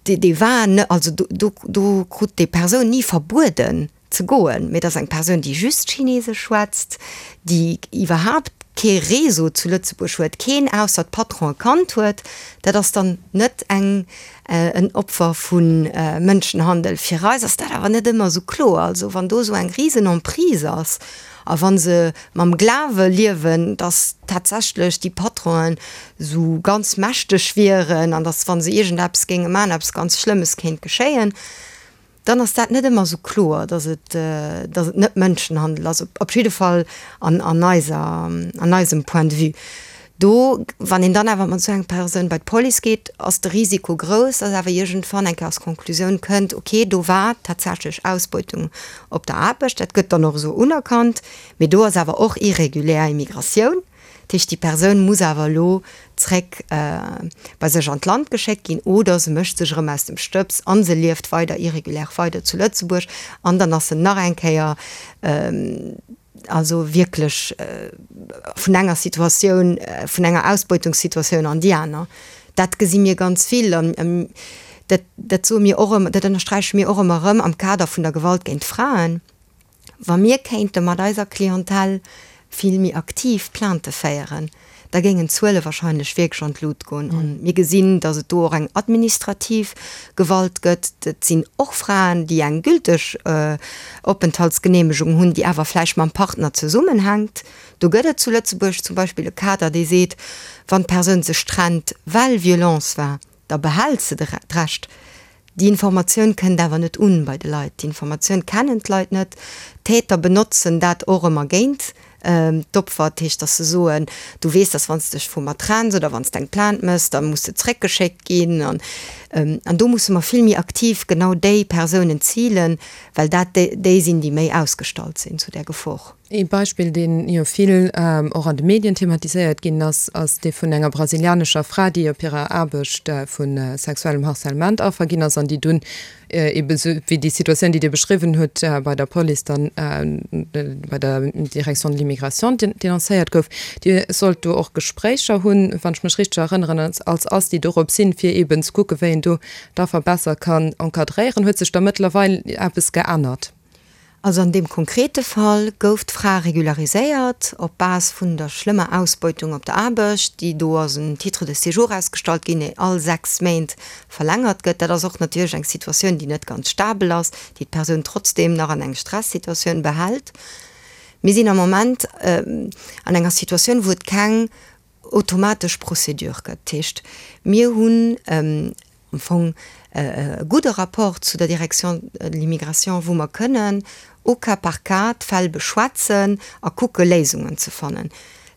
dee war, also do, do krut déi Persoun ni verbueden. ze goen. Mee et ass eng Persoun, déi just Chinesesch schwätzt, déi iwwerhaapt kee Réseau zu Lëtzebuerg huet, keen ausser d'Patronen kannt huet. Dat ass dann net eng, en Opfer vu Mënschenhandel. Fir eis ass dat awer net ëmmer esou kloer. Also wann do esou eng risen Emprise ass a wa se mam Glawe liewen, datt tatsächlech déi Patronen esou ganz mächteg wieren an datt wa se iergendeppes géinge maachen, eppes ganz Schlëmmes kéint geschéien, dann ass dat net ëmmer esou kloer, datt et, datt et net Mënschenhandel ass, op jidde Fall an, an eiser, an eisem Point de vue. Do, wann een dann awer mat esou enger Persoun bei d'Police geet, ass de Risiko grouss, datt awer iergendwann eng Kéier als Konklusioun kënnt, okay, do war tatsächlech Ausbeutung op der Aarbecht. Dat gëtt dann och esou unerkannt, mee do ass awer och irregulär Immigratioun. Dat heescht, déi Persoun muss awer elo zréck bei sech an d'Land geschéckt ginn oder se mécht sech erëm aus dem Stëbs a se lieft weider irregulär weider zu Lëtzebuerg an dann ass se nach eng Kéier also wierklech vun enger Situatioun, vun enger Ausbeutungssituatioun an déi aner. Dat gesi mir ganz vill an dat, dat soe mir och ëmmer, dat ënnersträiche mir och ëmmer erëm am Kader vun der Gewalt géint Fraen. Wa mir kéinte mat eiser Clientèle vill méi aktiv Plaintë féieren, da géingen d'Zuele wahrscheinlech wierklech an d'Lut goen. A mir gesinn, datt et do och eng administrativ Gewalt gëtt. Et sinn och Fraen, déi eng gülteg Openthaltsgeneemegung hunn, déi awer vläicht mam Partner zesummenhänkt. Do gëtt et zu Lëtzebuerg zum Beispill e Kader, dee seet, wann d'Persoun sech trennt, well Violence war, da behält se d'Recht. Déi Informatioun kënnt awer net un bei de Leit. Déi Informatioun kennen d'Leit net. D'Täter benotzen dat och ëmmer géint d'Opfer. Dat heescht, datt se soen, du weess, datt wann s de dech vu mer trenns oder wann s de eng Plainte méchs, da muss de zréckgeschéckt ginn. An an do musse mer vill méi aktiv genau déi Persounen zilen, well dat déi sinn, déi méi ausgestallt sinn zu där Gefor. Ee Beispill, dee jo vill och an de Medien thematiséiert ginn ass, ass dee vun enger brasilianescher Fra, déi op hirer Aarbecht vu sexuellem Harcèlement Affer ginn ass an déi dunn eebe sou wéi déi Situatioun, déi Dir beschriwwen hutt, bei der Police dann, bei der Direction de l'immigration denoncéiert gouf. Dir sollt do och Gespréicher hunn, wann ech mech richteg erënneren, als Asti dorop sinn, fir eeben ze kucken, wéi een do d'Affer besser kann encadréieren. Huet sech da mëttlerweil eppes geännert? Also an deem konkrete Fall gouf d'Fra regulariséiert op Base vun der schlëmmer Ausbeutung op der Aarbecht, déi do ass en Titre de séjour ausgestallt ginn, dee all 6 Méint verlängert gëtt. Dat ass och natierlech eng Situatioun, déi net ganz stabel ass, déi d'Persoun trotzdeem nach an eng Stressituatioun behält. Mir sinn am Moment an enger Situatioun, wou et keng automatesch Procédure gëtt. Dat heescht, mir hunn am Fong e gudde Rapport zu der Direction de l'immigration, wou mer kënnen au cas par cas d'Fäll beschwätzen a kucke Léisungen ze fannen.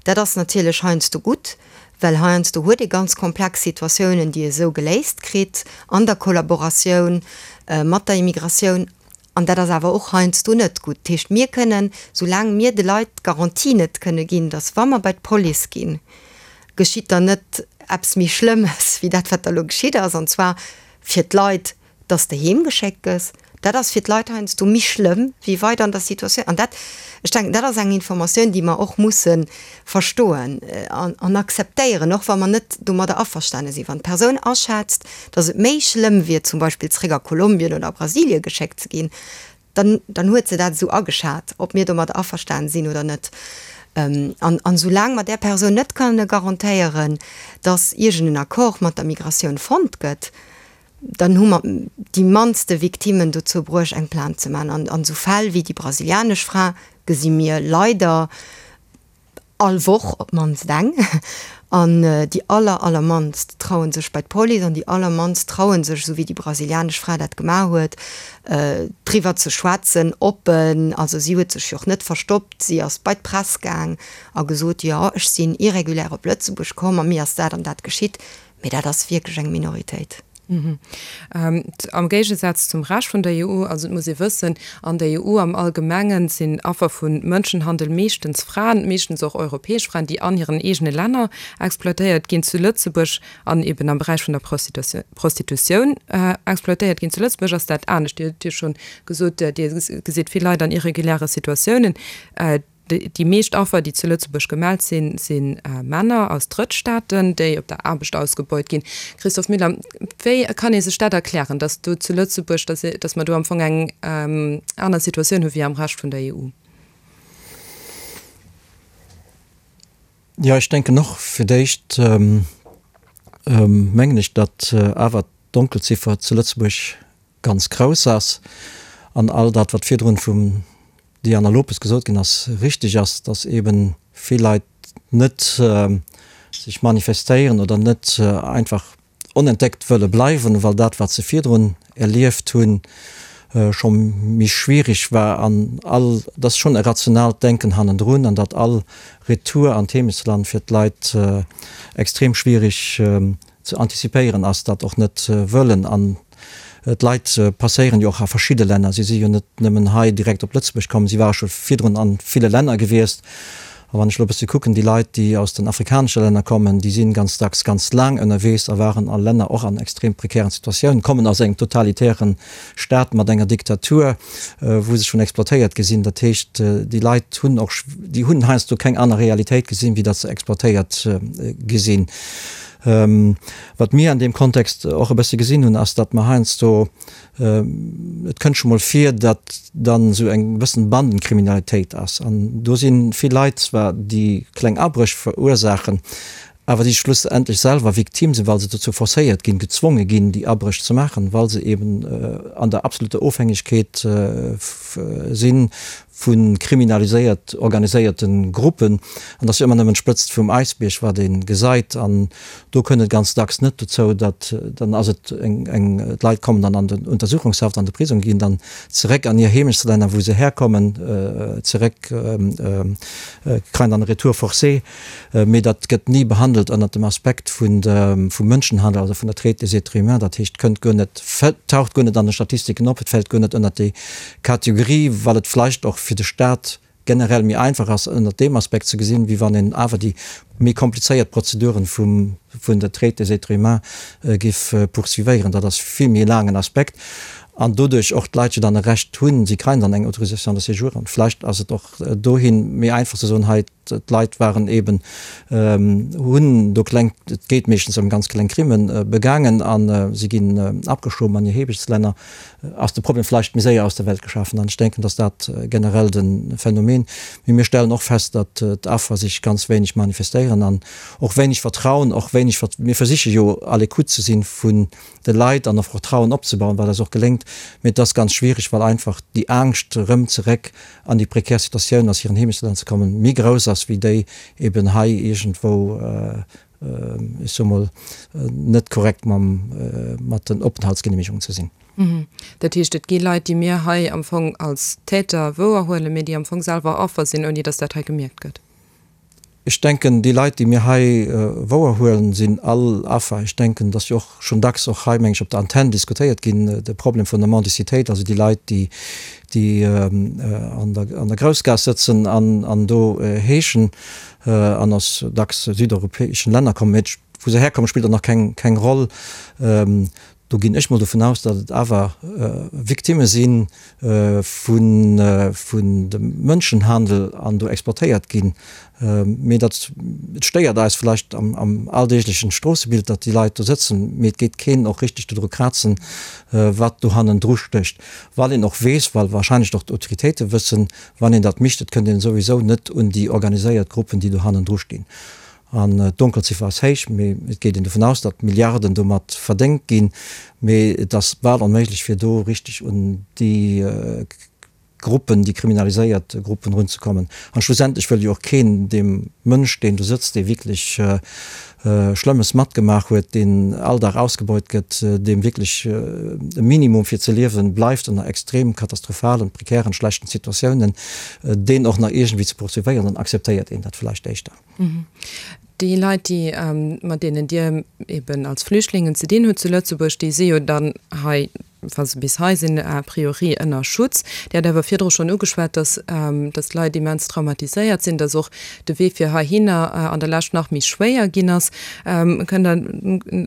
Dat ass natierlech heiansdo gutt, well heiansdo huet ee ganz komplex Situatiounen, déi ee sou geléist kritt an der Kollaboratioun mat der Immigratioun. An dat ass awer och heiansdo net gutt. Dat heescht, mir kënnen, soulaang mir de Leit d'Garantie net kënne ginn, datt wa mer bei d'Police ginn, geschitt dann net eppes méi Schlëmmes wéi dat, wat da elo geschitt ass, an zwar fir d'Leit, datt s de heem geschéckt gëss, dat ass fir d'Leit heiansdo méi schlëmm wéi weider an der Situatioun. An dat, ech denken, dat ass eng Informatioun, déi mer och musse verstoen an akzeptéieren, och wa mer net domadder averstane sinn. Wann d'Persoun aschätzt, datt et méi schlëmm wier, zum Beispill zréck a Kolumbien oder a Brasilie geschéckt ze ginn, dann, dann huet se dat esou ageschat, ob mir domadder averstane sinn oder net. An, an soulaang mer där Persoun net kënne garantéieren, datt iergend en Accord mat der Migratioun fonnt gëtt, dann hu mer déi mannste Victimmen dozou bruecht, eng Plainte ze maachen. An, an esou Fäll wéi déi brasilianesch Fra gesi mir leider all Woch op d'mannst eng. An déi aller, allermannst traue sech bei d'Police an déi allermannst traue sech, esou wéi déi brasilianesch Fra dat gemaach huet, driwwer ze schwätzen, oppen. Also si huet sech jo och net verstoppt, si ass bei d'Press gaang a gesot, jo, ech sinn irregulär op Lëtzebuerg komm a mir ass dat an dat geschitt. Mee dat ass wierklech eng Minoritéit. Am Géigesaz zum Rescht vun der EU, also et muss ee wëssen, an der EU am Allgemengen sinn Affer vu Mënschenhandel meeschtens Fraen, meeschtens och europäesch Fraen, déi an hiren eegene Länner exploitéiert ginn. Zu Lëtzebuerg an eben am Beräich vun der Prostitutioun exploitéiert ginn. Zu Lëtzebuerg ass dat anescht. Dir hutt jo schonn gesot, Dir gesitt vill Leit an irreguläre Situatiounen. Déi meescht Affer, déi zu Lëtzebuerg gemellt sinn, si Männer aus Drëttstaaten, déi op der Aarbecht ausgebeut ginn. Christophe Müller, wéi kann ee sech dat erklären, datt do zu Lëtzebuerg, datt mer do am Fong eng aner Situatioun hu wéi am Rescht vun der EU? Jo, ech denken och, fir d'éischt mengen ech, datt awer d'Donkelziffer zu Lëtzebuerg ganz grouss ass an all dat, wat virdrun vum Diana Lopes gesot ginn ass, richteg ass, dass eeben vill Leit net sech manifestéieren oder net einfach onentdeckt wëlle bleiwen, well dat, wat se virdrun erlieft hunn, scho méi schwierig war an all, et ass schonn e rationaalt Denken hannendrun an datt all Retour an d'Heemechtsland fir d'Leit extrem schwierig ze antizipéieren ass, dat och net wëllen. An d'Leit passéieren jo och a verschidde Länner. Si si jo net nëmmen hei direkt op Lëtzebuerg komm, si ware scho virdrun a ville Länner gewiescht. A wann ech elo e bësse kucken, déi Leit, déi aus den afrikanesche Länner kommen, déi si ganz dacks ganz laang ënnerwees a waren a Länner och an extrem prekären Situatiounen, kommen aus engem totalitäre Staat mat enger Diktatur, wou se schonn exploitéiert gi sinn. Dat heescht, déi Leit hunn och, déi hunn heiansdo keng aner Realitéit gesinn, wéi datt se exploitéiert gi sinn. Wat mir an deem Kontext och e bësse gesinn hunn, ass, datt mer heiansdo, et kënnt scho mol vir, datt dann esou eng bëssen Bandenkriminalitéit ass. An do si vill Leit zwar, déi kleng Abréch verursaachen, awer déi schlussendlech selwer Victime sinn, well se dozou forcéiert ginn, gezwonge ginn, déi Abréch ze maachen, well se eben an der absoluter Ofhängegkeet si vu kriminaliséiert organiséierte Gruppen. An et ass jo ëmmer nëmmen d'Spëtzt vum Äisbierg, wat ee gesait. An do kënnt et ganz dacks net dozou, datt dann ass et eng, eng, d'Leit kommen dann an den Untersuchungshaft, an de Prisong, ginn dann zeréck an hir Heemechtslänner, wou se herkommen, zeréck, kreien dann e Retour forcé. Mee dat gëtt ni behandelt ënnert dem Aspekt vun vum Mënschenhandel, also vun der Traite des êtres humains. Dat heescht, kënnt guer net, taucht guer net an de Statistiken op, et fält guer net ënnert déi Kategorie, well et vläicht och fir de Staat generell méi einfach ass, ënnert deem Aspekt ze gesinn, wéi wann een awer déi méi komplizéiert Prozeduren vum vun der Traite des êtres humains géif poursuivéieren. Dat ass vill méi e laangen Aspekt an doduerch och d'Leit jo dann e Recht hunn, si kréien dann eng Autorisation de séjour an vläicht ass et och dohin méi einfach ze soen, hei, D'Leit waren eben, hunn do kleng, et geet meeschtens ëm ganz kleng Crimen, begaangen a si ginn abgeschoben an hir Heemechtslänner, ass de Problem vläicht méi séier aus der Welt geschafen. An ech denken, dass dat generell de Phänomen. Mee mir stellen och fest, datt d'Affer sech ganz wéineg manifestéieren an och wéineg Vertrauen, och wéineg, mir versiche jo à l'écoute ze sinn vun de Leit an och Vertrauen opzebauen, wat eis och geléngt, mee et ass ganz schwierig, well einfach déi Angscht erëm zeréck an déi prekär Situatioun aus hiren Heemechtslänner ze kommen, méi grouss ass wéi déi eben hei iergendwou, ech soe mol, net korrekt mam, mat den Openthaltsgenehmigungen ze sinn. Dat heescht, et gi Leit, déi mir hei am Fong als Täter wouerhuelen, mee déi am Fong selwer Affer sinn, ouni datt dat hei gemierkt gëtt. Ech denken, déi Leit, déi mir hei wouerhuelen, sinn all Affer. Ech denken, et ass jo och schonn dacks och hei, meng ech, op der Antenn diskutéiert ginn, de Problem vun der Mendicitéit, also déi Leit, déi, déi an der, an der Groussgaass sëtzen an, an do heeschen an aus dacks südeuropäeschen Länner kommen. Mee wou se herkommen, spillt och nach keng, keng Roll. Do ginn ech mol dovun aus, datt et awer Victimme si vun dem Mënschenhandel an do exploitéiert ginn. Mee dat, et stéiert eis vläicht am alldeeglechen Stroossebild, datt déi Leit do sëtzen, mee et geet keen och richteg dodru krazen, wat do hannendru stécht, well een och weess, well wahrscheinlech och d'Autoritéite wëssen, wann een dat micht, et kënnt een souwisou net un déi organiséiert Gruppen, déi do hannendru stinn. An d'Donkelziffer ass héich, mee et geet een dovun aus, datt Milliarden domat verdéngt ginn. Mee et ass bal onméiglech, fir do richteg un déi Gruppen, déi kriminaliséiert Gruppen erunzekommen. An schlussendlech wëll jo och keen deem Mënsch, deen do sëtzt, dee wierklech Schlëmmes matgemaach huet, deen all Dag ausgebeut gëtt, deem wierklech e Minimum fir ze liewen bleift ënner extrem katastrophalen, prekären, schlechten Situatiounen, deen och nach iergendwéi ze poursuivéieren, dann akzeptéiert een dat vläicht éischter. Déi Leit, déi, mat deenen Dir eben als Flüchtlingen ze dinn hutt zu Lëtzebuerg, déi si jo dann hei. wa se bis hei sinn, a priori ënner Schutz. Dir hat awer virdru schonn ugeschwat, dass, dass d'Leit immens traumatiséiert sinn, dass och de Wee fir heihinner an der Lescht nach méi schwéier ginn ass. Kënnt Der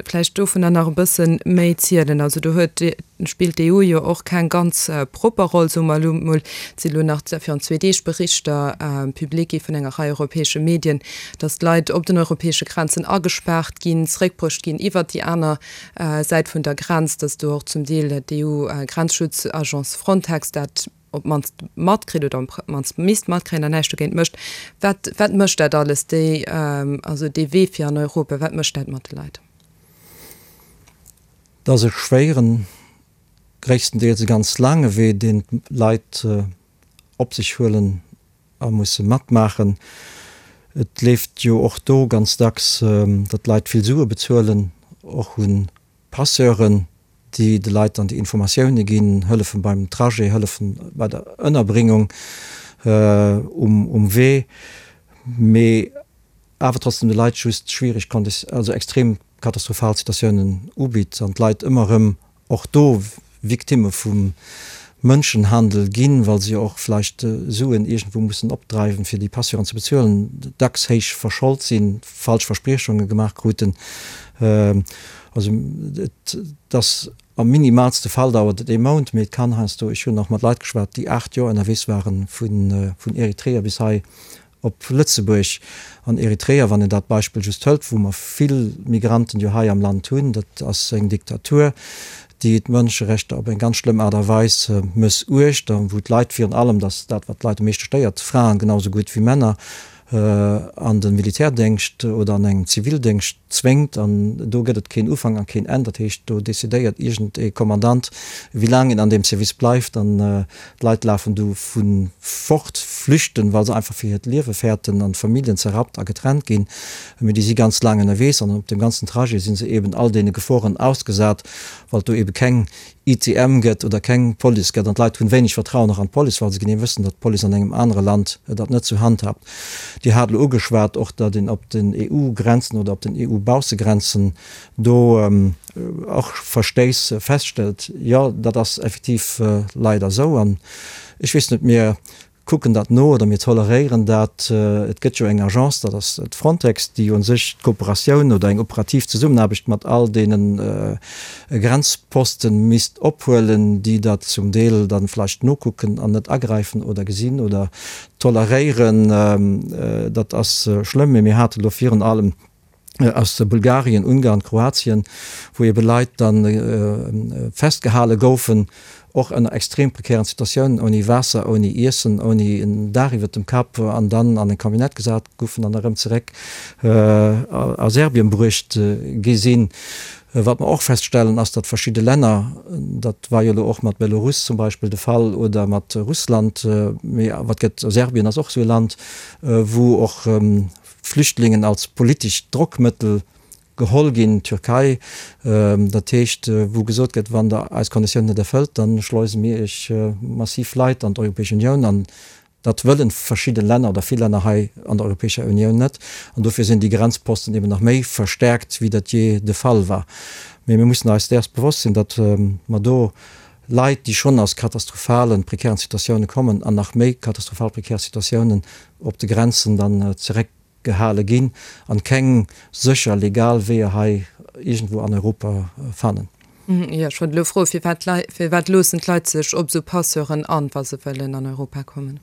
vläicht dovunner nach e bësse méi zielen? Also do huet, spillt d'EU jo och keng ganz propper Roll, soe mer elo mol. Et si elo nach virun zwee Deeg Berichter public gi vun enger Rei europäesche Medien, dass d'Leit op den europäesche Grenzen agespaart ginn, zréckbruecht ginn iwwert déi aner Säit vun der Grenz, dass do och zum Deel d'EU-Grenzschutzagence Frontex dat op d'mannst matkritt oder op d'mannst misst matkréien an näischt dogéint mécht. Wat, wat mécht dat alles, déi, also dee Wee fir an Europa, wat mécht dat mat de Leit? Dat ass e schwéieren, gréisstendeels e ganz laange Wee, deen d'Leit op sech huelen a musse matmaachen. Et leeft jo och do ganz dacks, datt d'Leit vill Sue bezuelen, och u Passeuren, déi de Leit dann déi Informatioune ginn, hëllefen beim Trajet, hëllefen bei der Ënnerbringung um Wee, mee awer trotzdem de Leit just schwiereg, also extrem katastrophal Situatiounen ubitt an d'Leit ëmmer erëm och do Victimme vum Mënschenhandel ginn, well se jo och vläicht Suen iergendwou mussen opdreiwen, fir déi Passeuren ze bezuelen, dacks héich verscholt sinn, falsch Verspriechunge gemaach kruten. Also et ass am minimalste Fall dauert et ee Mount, mee et kann heiansdo, ech hunn och mat Leit geschwat, déi 8 Joer ënnerwees waren, vun Eritrea bis hei Op Lëtzebuerg an Eritrea, wann een dat Beispill just hëlt, wou mer vill Migranten jo hei am Land hunn, dat ass eng Diktatur, déi d'Mënscherechter op eng ganz schlëmm Aart a Weis mëssuecht a wou d'Leit virun allem, dat ass dat, wat d'Leit am meeschte stéiert, Fraen genau esou gutt wéi Männer, an de Militärdéngscht oder an engem Zivildéngscht zwéngt. An do gëtt et keen Ufank a keen Enn. Dat heescht, do decidéiert iergend ee Kommandant, wéi laang een an deem Service bleift. An D'Leit lafen du vu fort, flüchten, well se einfach fir hiert Liewe fäerten an d'Familljen zerrappt a getrennt ginn. Mee déi si ganz laang ënnerwees an op deem ganzen Trajet si se eben all deene Geforen ausgesat, well et do ebe keng ITM gëtt oder keng Police gëtt. An d'Leit hunn wéineg Vertrauen och an d'Police, well se genee wëssen, datt d'Police an engem anere Land dat net sou handhabt. Dir hat elo ugeschwat och, datt een op den EU-Grenzen oder op den EU-Baussegrenzen do och Verstéiss feststellt. Jo, dat ass effektiv leider esou. An ech weess net, mir kucken dat no oder mir toleréieren dat. Et gëtt jo eng Agence, dat ass d'Frontex, déi u sech d'Kooperatioun oder eng operativ Zesummenaarbecht mat all deene Grenzposten misst ophuelen, déi dat zum Deel da vläicht nokucken an net agräifen oder gesinn oder toleréieren. Dat ass schlëmm. Mee mir hate lo virun allem aus Bulgarien, Ungarn, Kroatien, wou ebe Leit da festgehale goufen, och ënner extrem prekären Situatiounen, ouni Waasser, ouni Iessen, ouni en Daach iwwert dem Kapp, an dann an eng Camionnette gesat goufen an erëm zeréck a Serbien bruecht gi sinn. Wat mer och feststellen, ass, datt verschidde Länner, dat war jo elo och mat Belarus zum Beispill de Fall oder mat Russland, mee wat gëtt, Serbien ass och esou e Land, wou och Flüchtlingen als politescht Drockmëttel geholl ginn, Türkei, dat heescht, wou gesot gëtt, wann Der eis Konditiounen net erfëllt, da schleuse mir Iech massiv Leit an d'Europäesch Unioun. An dat wëllen verschidde Länner oder vill Länner hei an der Europäescher Unioun net. An dofir sinn déi Grenzposten eben nach méi verstärkt, wéi dat jee de Fall war. Mee mir mussen eis däers bewosst sinn, datt mer do Leit, déi schonn aus katastrophalen, prekären Situatioune kommen, an nach méi katastrophal prekär Situatiounen op de Grenzen dann zeréckgehale ginn an keng sécher legal Weeër hei iergendwou an Europa fannen. Jo, ech wollt elo froen, firwat firwat loossen d'Leit sech op esou Passeuren an, wa se wëllen an Europa kommen?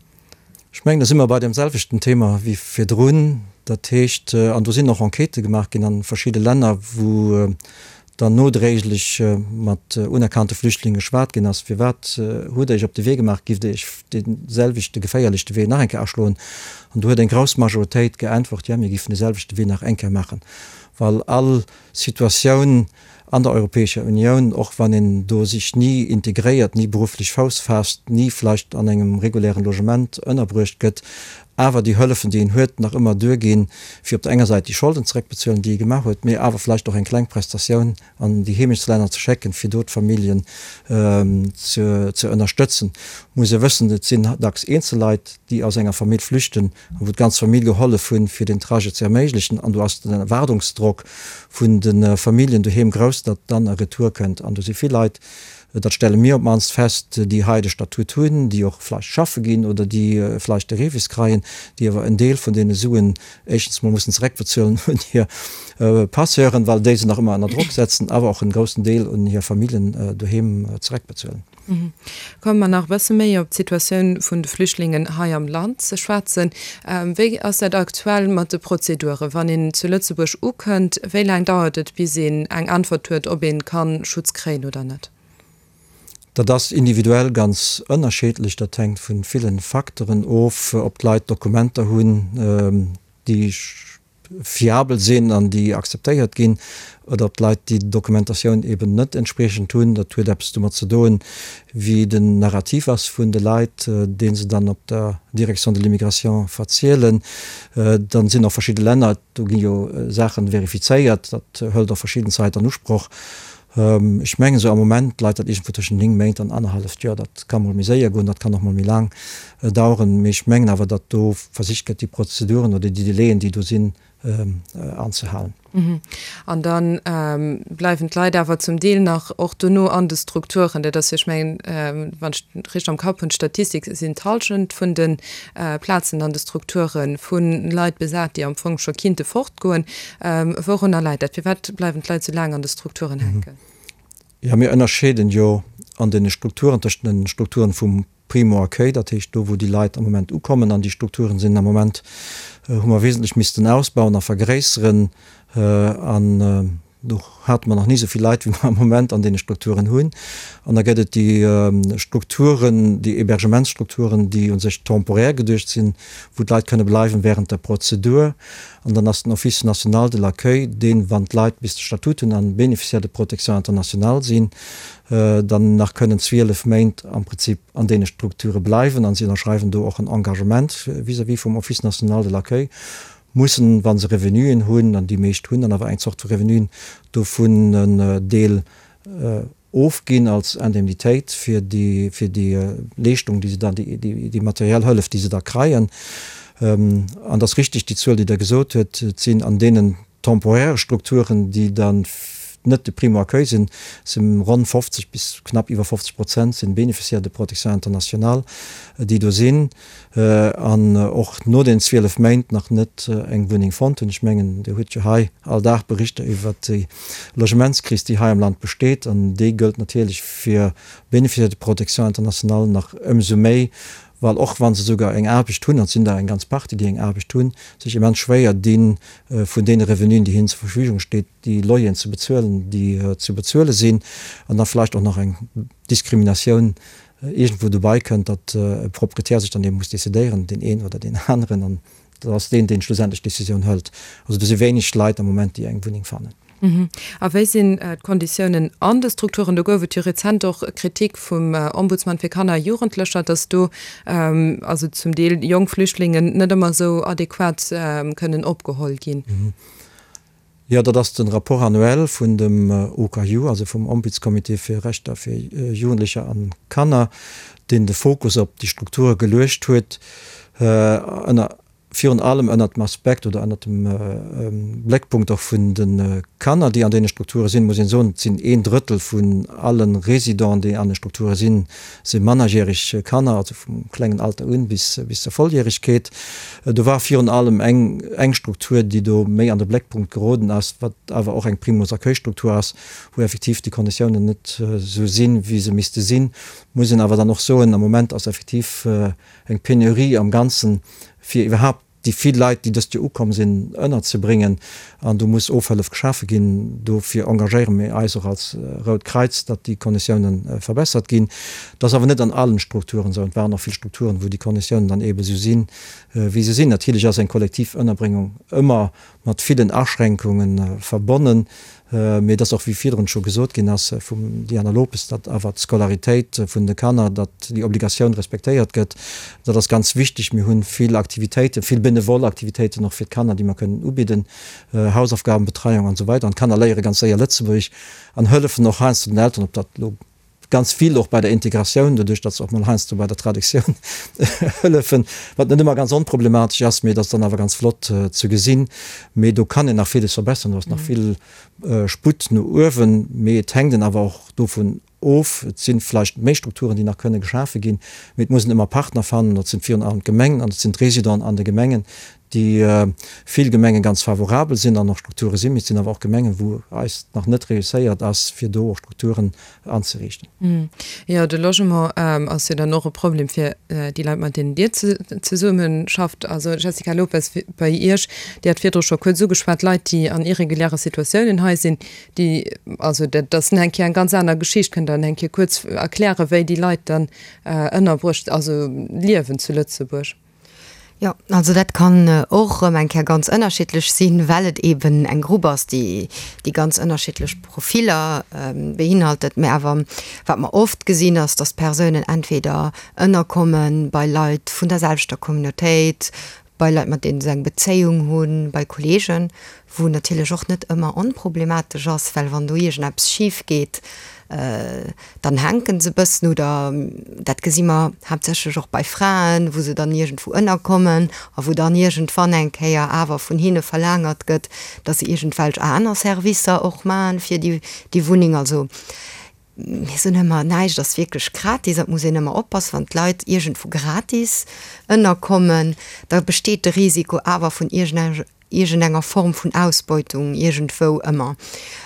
Ech mengen, da si mer bei deem selwechten Thema wéi virdrun. Dat heescht, an do sinn och Enquêtë gemaach ginn a verschidde Länner, wou dann nodréiglech mat unerkannte Flüchtlinge geschwat ginn ass, Firwat hutt Der Iech op de Wee gemaach? Giff Der Iech dee selwechte geféierlechte Wee nach eng Kéier aschloen? An do huet eng grouss Majoritéit geäntwert, Jo, mir giffen de selwechte Wee nach eng Kéier maachen, well all Situatioun an der Europäescher Unioun, och wann een do sech ni integréiert, ni berufflech Fouss faasst, ni vläicht an engem regulären Logement ënnerbruecht gëtt, awer déi Hëllefen, déi een huet, nach ëmmer duerginn, fir op der enger Säit déi Scholden zeréckbezuelen, déi ee gemaach huet, mee awer vläicht och eng kleng Prestatioun an déi Heemechtslänner ze schécken, fir do d'Familljen ze ënnerstëtzen. Muss ee wëssen, et sinn dacks eenzel Leit, déi aus enger Famill flüchten a wou d'ganz Famill gehollef hunn, fir den Trajet ze erméiglechen. An do ass den Erwaardungsdrock vun de Familljen doheem grouss, datt dann e Retour kënnt. An do si vill Leit. dat stelle mir op d'mannst fest, déi hei de Statut hunn, déi och vläicht schaffe ginn oder déi vläicht de REVIS kreien, déi awer en Deel vun deene Suen éischtens mol mussen zereckbezuelen un hir Passeuren, well déi se nach ëmmer ënner Drock setzen, awer och en groussen Deel un hir Familljen doheem zereckbezuelen. Komme mer nach e bësse méi op d'Situatioun vun de Flüchtlingen hei am Land ze schwätzen. Wéi ass dat aktuell mat de Prozeduren? Wann een zu Lëtzebuerg ukënnt, wéi laang dauert et, bis een eng Äntwert huet, ob ee ka Schutz kréien oder net? Dat ass individuell ganz ënnerscheedlech. Dat hänkt vu ville Facteuren of, ob d'Leit Dokumenter hunn, déi fiabel sinn an déi akzeptéiert ginn, oder ob d'Leit déi Dokumentatioun eben net entspriechend hunn. Dat huet eppes domat ze doen, wéi den Narrativ ass vun de Leit, dee se dann op der Direction de l'immigration verzielen. Dann sinn och verschidde Länner, do gi jo Saache verifizéiert, dat hëlt och verschidden Zait an Usproch. Ech mengen esou am Moment leit dat iergendwou tëschent 9 Méint an annerhalleft Joer. Dat ka mol méi séier goen, dat kann och mol méi laang daueren. Mee ech mengen awer, datt do versicht gëtt, déi Prozeduren oder déi Delaien, déi do sinn, anzehalen. An da bleiwen d'Leit awer zum Deel nach och dono an de Strukturen. Dat ass jo, ech mengen, wann ech et richteg am Kapp hunn, d'Statistik, sinn d'Hallschent vun de Plazen an de Strukture vu Leit besat, déi am Fong scho kinnte fortgoen. Wourunner läit dat? Firwat bleiwen d'Leit sou laang an de Strukturen hänken? Jo, mir ënnerscheeden jo an deene Strukturen tëschent den Strukturen vum Primo-Accueil, dat heescht do wou déi Leit am Moment ukommen, an déi Strukturen sinn am Moment, hu mer wesentlech missten ausbauen a vergréisseren an do hate mer nach ni esou vill Leit wéi mer am Moment an deene Strukturen hunn. An da gëtt et déi Strukturen, déi Hébergementsstrukturen, déi u sech temporär geduecht sinn, wou d'Leit kënne bleiwen während der Prozedur. An dann ass den Office national de l'accueil deen, wann d'Leit bis de Statut hunn an Bénéficiaire de protection internationale sinn, dann nach kënnen 12 Méint am Prinzip an deene Strukture bleiwen. An si ënnerschreiwen do och en Engagement vis-à-vis vum Office national de l'accueil, mussen, wa se Revenuen hunn, an déi meescht hunn dann awer eng Zort vu Revenuen, dovun en Deel ofginn als Indemnitéit fir déi, fir déi Leeschtung, déi se dann, déi, déi materiell Hëllef, déi se da kreien. An et ass richtig, déi Zuel, déi Der gesot huet, et sinn an deenen temporäre Strukturen, déi dann net de Primo-accueil sinn, si ronn 50 bis knapp iwwer 50 Prozent sinn Bénéficiaires de protection internationale, déi do sinn an och no den 12 Méint nach net eng Wunneng fonnt hunn. Ech mengen, Dir hutt jo hei all Dag Berichter iwwert déi Logementskris, déi hei am Land besteet, an déi gëllt natierlech fir Bénéficiaires de protection internationale nach ëmsou méi, well och wa se souguer eng Aarbecht hunn, an et sinn der eng ganz Partie, déi eng Aarbecht hunn, sech immens schwéier dinn, vun deene Revenuen, déi hinnen zur Verfügung steet, déi Loyeren ze bezuelen, déi ze bezuele sinn, an da vläicht och nach eng Diskriminatioun iergendwou dobei kënnt, datt e Proprietär sech dann eben muss decidéieren, deen een oder deen aneren, an dat ass deen, deen schlussendlech d'Decisioun hëlt. Also do si wéineg Leit am Moment, déi eng Wunneng fannen. A wéi sinn d'Konditiounen an de Strukturen? Do gouf et jo rezent och Kritik vum Ombudsman fir Kanner a Jugendlecher, datt do also zum Deel jonk Flüchtlingen net ëmmer esou adequat kënnen opgeholl ginn. Jo, dat ass de Rapport annuel vun dem OKaJu, also vum Ombudscomité fir Rechter fir Jugendlecher an Kanner, deen de Fokus op déi Strukture geluecht huet, ënner, virun allem ënnert dem Aspekt oder ënnert dem Bléckpunkt och vun de Kanner, déi an deene Strukture sinn. Muss een soen, et sinn een Drëttel vun alle Residenten, déi an de Strukture sinn, si mannerjäreg Kanner, also vum klengen Alter un bis bis zur Volljäregkeet. Do war virun allem eng eng Struktur, déi do méi an de Bléckpunkt geroden ass, wat awer och eng Primus-Accueil-Struktur ass, wou effektiv déi Konditiounen net esou sinn, wéi se misste sinn. Muss een awer dann och soen, am Moment ass effektiv eng Penurie am Ganzen, fir iwwerhaapt déi vill Leit, déi dëst Joer ukomm sinn, ënnerzebréngen. An do muss Ofhëllef geschafe ginn. Dofir engagéiere mir eis och als Rout Kräiz, datt déi Konditioune verbessert ginn. Dat ass awer net an allen Strukturen esou. Et waren och vill Strukturen, wou déi Konditiounen dann eebe esou sinn, wéi se sinn. Natierlech ass eng kollektiv Ënnerbréngung ëmmer mat villen Aschränkunge verbonnen. Mee et ass och, wéi virdrun scho gesot ginn ass vum Diana Lopes, datt awer d'Scolaritéit vun de Kanner, datt déi Obligatioun respektéiert gëtt. Dat ass ganz wichteg. Mir hu vill Aktivitéiten, vill benevol Aktivitéiten och fir d'Kanner, déi mer kënnen ubidden, Hausaufgabenbetreiung an esou weider. An d'Kanner léiere ganz séier Lëtzebuergesch an hëllefen och heiansdo den Elteren, ob dat elo Ganz vill och bei der Integratioun, doduerch datt se och mol heiansdo bei der Traductioun hëllefen, wat net ëmmer ganz onproblematesch ass, mee et ass dann awer ganz flott ze gesinn. Mee do kann een nach villes verbessern, do ass nach vill Sputt no uewen, mee et hänkt een awer och dovun. of. Et si vläicht méi Strukturen, déi nach kënne geschafe ginn, mee et muss een ëmmer Partner fannen. Dat sinn virun allem d'Gemengen an dat sinn d'Residenten an de Gemengen, déi vill Gemenge ganz favorabel sinn an och Strukture sinn, mee et sinn awer och Gemengen, wou eis nach net reusséiert ass, fir do och Strukturen anzeriichten. Jo, de Logement ass jo dann och e Problem fir déi Leit, mat deenen Dir zesummeschafft. Also Jessica Lopes, bei Iech, Dir hat virdru scho kuerz ugeschwat, Leit, déi an irreguläre Situatiounen hei sinn, déi, also dat ass eng Kéier eng ganz aner Geschicht. Kënnt Der eng Kéier kuerz erklären, wéi déi Leit dann ënnerbruecht, also liewen zu Lëtzebuerg? Jo, also dat kann och erëm eng Kéier ganz ënnerschiddlech sinn, well et eeben eng Grupp ass, déi, déi ganz ënnerschiddlech Profiller beinhaltet. Mä awer wat mer oft gesinn, ass, datt d'Persounen entweder ënnerkomme bei Leit vun der selwechter Communautéit, bei Leit, mat deene se eng Bezéiung hunn, bei Kolleegen, wou natierlech och net ëmmer onproblematesch ass, well wann do iergendeppes schif geet, dann hänke se e bëssen oder dat gesi mer haaptsächlech och bei Fraen, wou se dann iergendwou ënnerkommen a wou dann iergendwann eng Kéier awer vun hinne verlaangert gëtt, datt se iergendwelch aner Servicer och maachen fir déi déi Wunneng. Also mir soen ëmmer, näischt ass wierklech gratis an et muss een ëmmer oppassen, wann d'Leit iergendwou gratis ënnerkommen, da besteet de Risiko awer vun iergendenger iergendenger Form vun Ausbeutung iergendwou ëmmer.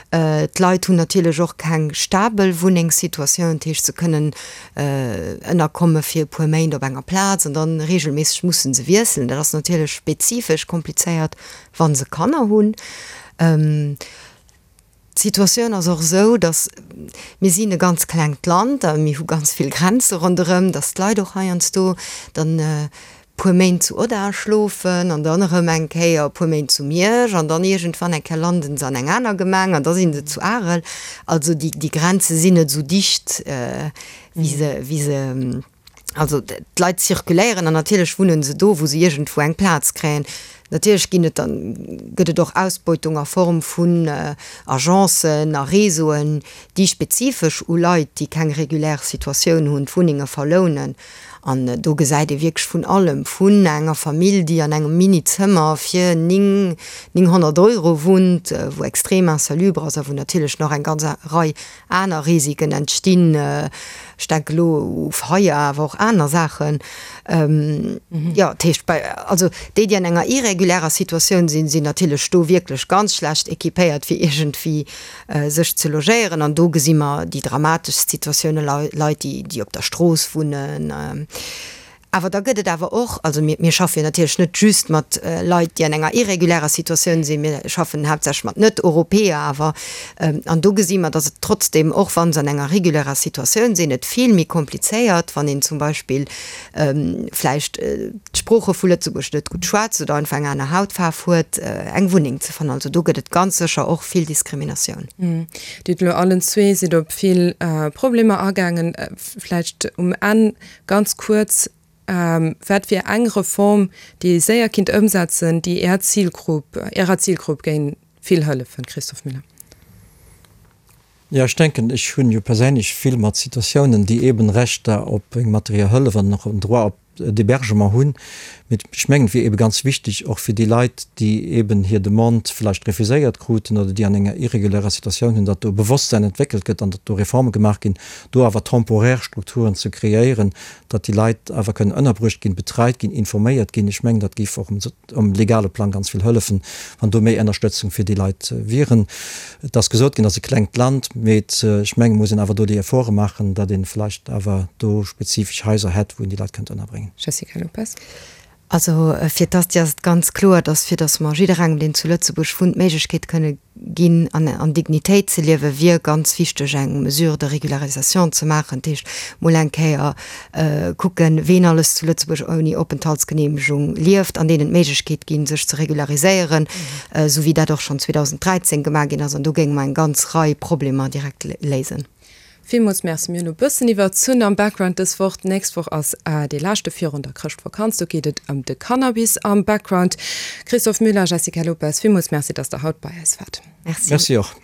D'Leit hunn natierlech och keng stabel Wunnengssituatioun, dat heescht se kënnen ënnerkomme fir e puer Méint op enger Plaz an dann regelméisseg musse se wiesselen. Dat ass natierlech spezifesch komplizéiert, wa se Kanner hunn. D'Situatioun ass och esou, datt, mir sinn e ganz klengt Land a mir hu ganz vill Grenze ronderëm, datt d'Leit och heiansdo dann e puer Méint zu Odda schlofen an dann erëm eng Kéier e puer Méint zu Miersch an dann iergendwann eng Kéier landen se an eng aner Gemeng an da si se zu Arel. Also déi Grenze sinn net esou dicht, wéi se, wéi se. Also d'Leit zirkuléieren an natierlech wunnen se do, wou se iergendwou eng Plaz kréien. Natierlech ginn et dann, gëtt et och Ausbeutung a Form vun Agencen a Réseauen, déi spezifesch u Leit, déi keng regulär Situatioun hunn, d'Wunnenge verlounen. An do gesäit ee wierklech vun allem, vun enger Famill, déi an engem Mini-Zëmmer fir 9, 900 Euro wunnt, wou extrem insalubre ass a wou natierlech nach eng ganz Rei aner Risiken entstinn, ech denke elo u Feier, awer och aner Saachen. Jo, dat heescht bei, also déi, déi an enger irregulärer Situatioun sinn, sinn natierlech do wierklech ganz schlecht équipéiert, fir iergendwéi sech ze logéieren. An do gesi mer déi dramateschst Situatiounen, Leit, déi op der Strooss wunnen. Awer da gëtt et awer och, also mir, mir schaffe jo natierlech net just mat Leit, déi an enger irregulärer Situatioun sinn, mir schaffen haaptsächlech mat Net-Europäer awer, an do gesi mer, datt et trotzdem, och wa se an enger regulärer Situatioun sinn, et vill méi komplizéiert, wann een zum Beispill vläicht d'Sprooche vu Lëtzebuerg net gutt schwätzt oder einfach eng aner Hautfaarf huet, eng Wunneng ze fannen. Also do gëtt et ganz sécher och vill Diskriminatioun. Dir hutt elo allen zwee, sidd op vill Problemer agaangen. Vläicht um Enn Ganz kuerz, Wat wier eng Reform, déi ee séier kinnt ëmsetzen, déi Är Zilgrupp, Ärer Zilgrupp géing vill hëllefen? Christophe Müller. Jo, ech denken, ech hunn jo perséinlech vill mat Situatiounen, déi eeben Rechter op eng materiell Hëllef an och en Droit op d'Hébergement hunn. Mee ech mengen, et wier eebe ganz wichteg, och fir déi Leit, déi eeben hir Demande vläicht refuséiert kruten oder déi an enger irregulärer Situatioun hunn, datt do e Bewosstsäin entwéckelt gëtt an datt do Reforme gemaach ginn, do awer temporär Strukturen ze kreéieren, datt déi Leit awer kënnen ënnerbruecht ginn, betreit ginn, informéiert ginn. Ech mengen, dat géif och um legale Plang ganz vill hëllefen, wann do méi Ënnerstëtzung fir déi Leit wieren. Et ass gesot ginn, et ass e klengt Land, mee ech mengen, et muss een awer do déi Efforte maachen, datt ee vläicht awer do spezifesch Haiser hätt, wou een déi Leit kënnt ënnerbréngen. Jessica Lopes. Also fir d'Asti ass et ganz kloer, datt fir datt mer jidderengem, deen zu Lëtzebuerg wunnt, d'Méiglechkeet kënne ginn, an an Dignitéit ze liewen, wier ganz wichteg eng Mesure de régularisation ze maachen. Dat heescht, mol eng Kéier kucken, ween alles zu Lëtzebuerg ouni Openthaltsgeneemegung lieft an deenen d'Méiglechkeet ginn, sech ze regulariséieren, esou wéi dat och schonn 2013 gemaach ginn ass. An do géinge mer eng ganz Rei Problemer direkt léisen. Villmools Merci. Mir hunn e bëssen iwwerzunn am Background dës Woch. D'nächst Woch ass dee leschte virun der Chrëschtvakanz. Do geet et ëm de Cannabis am Background. Christophe Müller, Jessica Lopes, villmools Merci, dass Der haut bei eis waart. Merci. Merci och.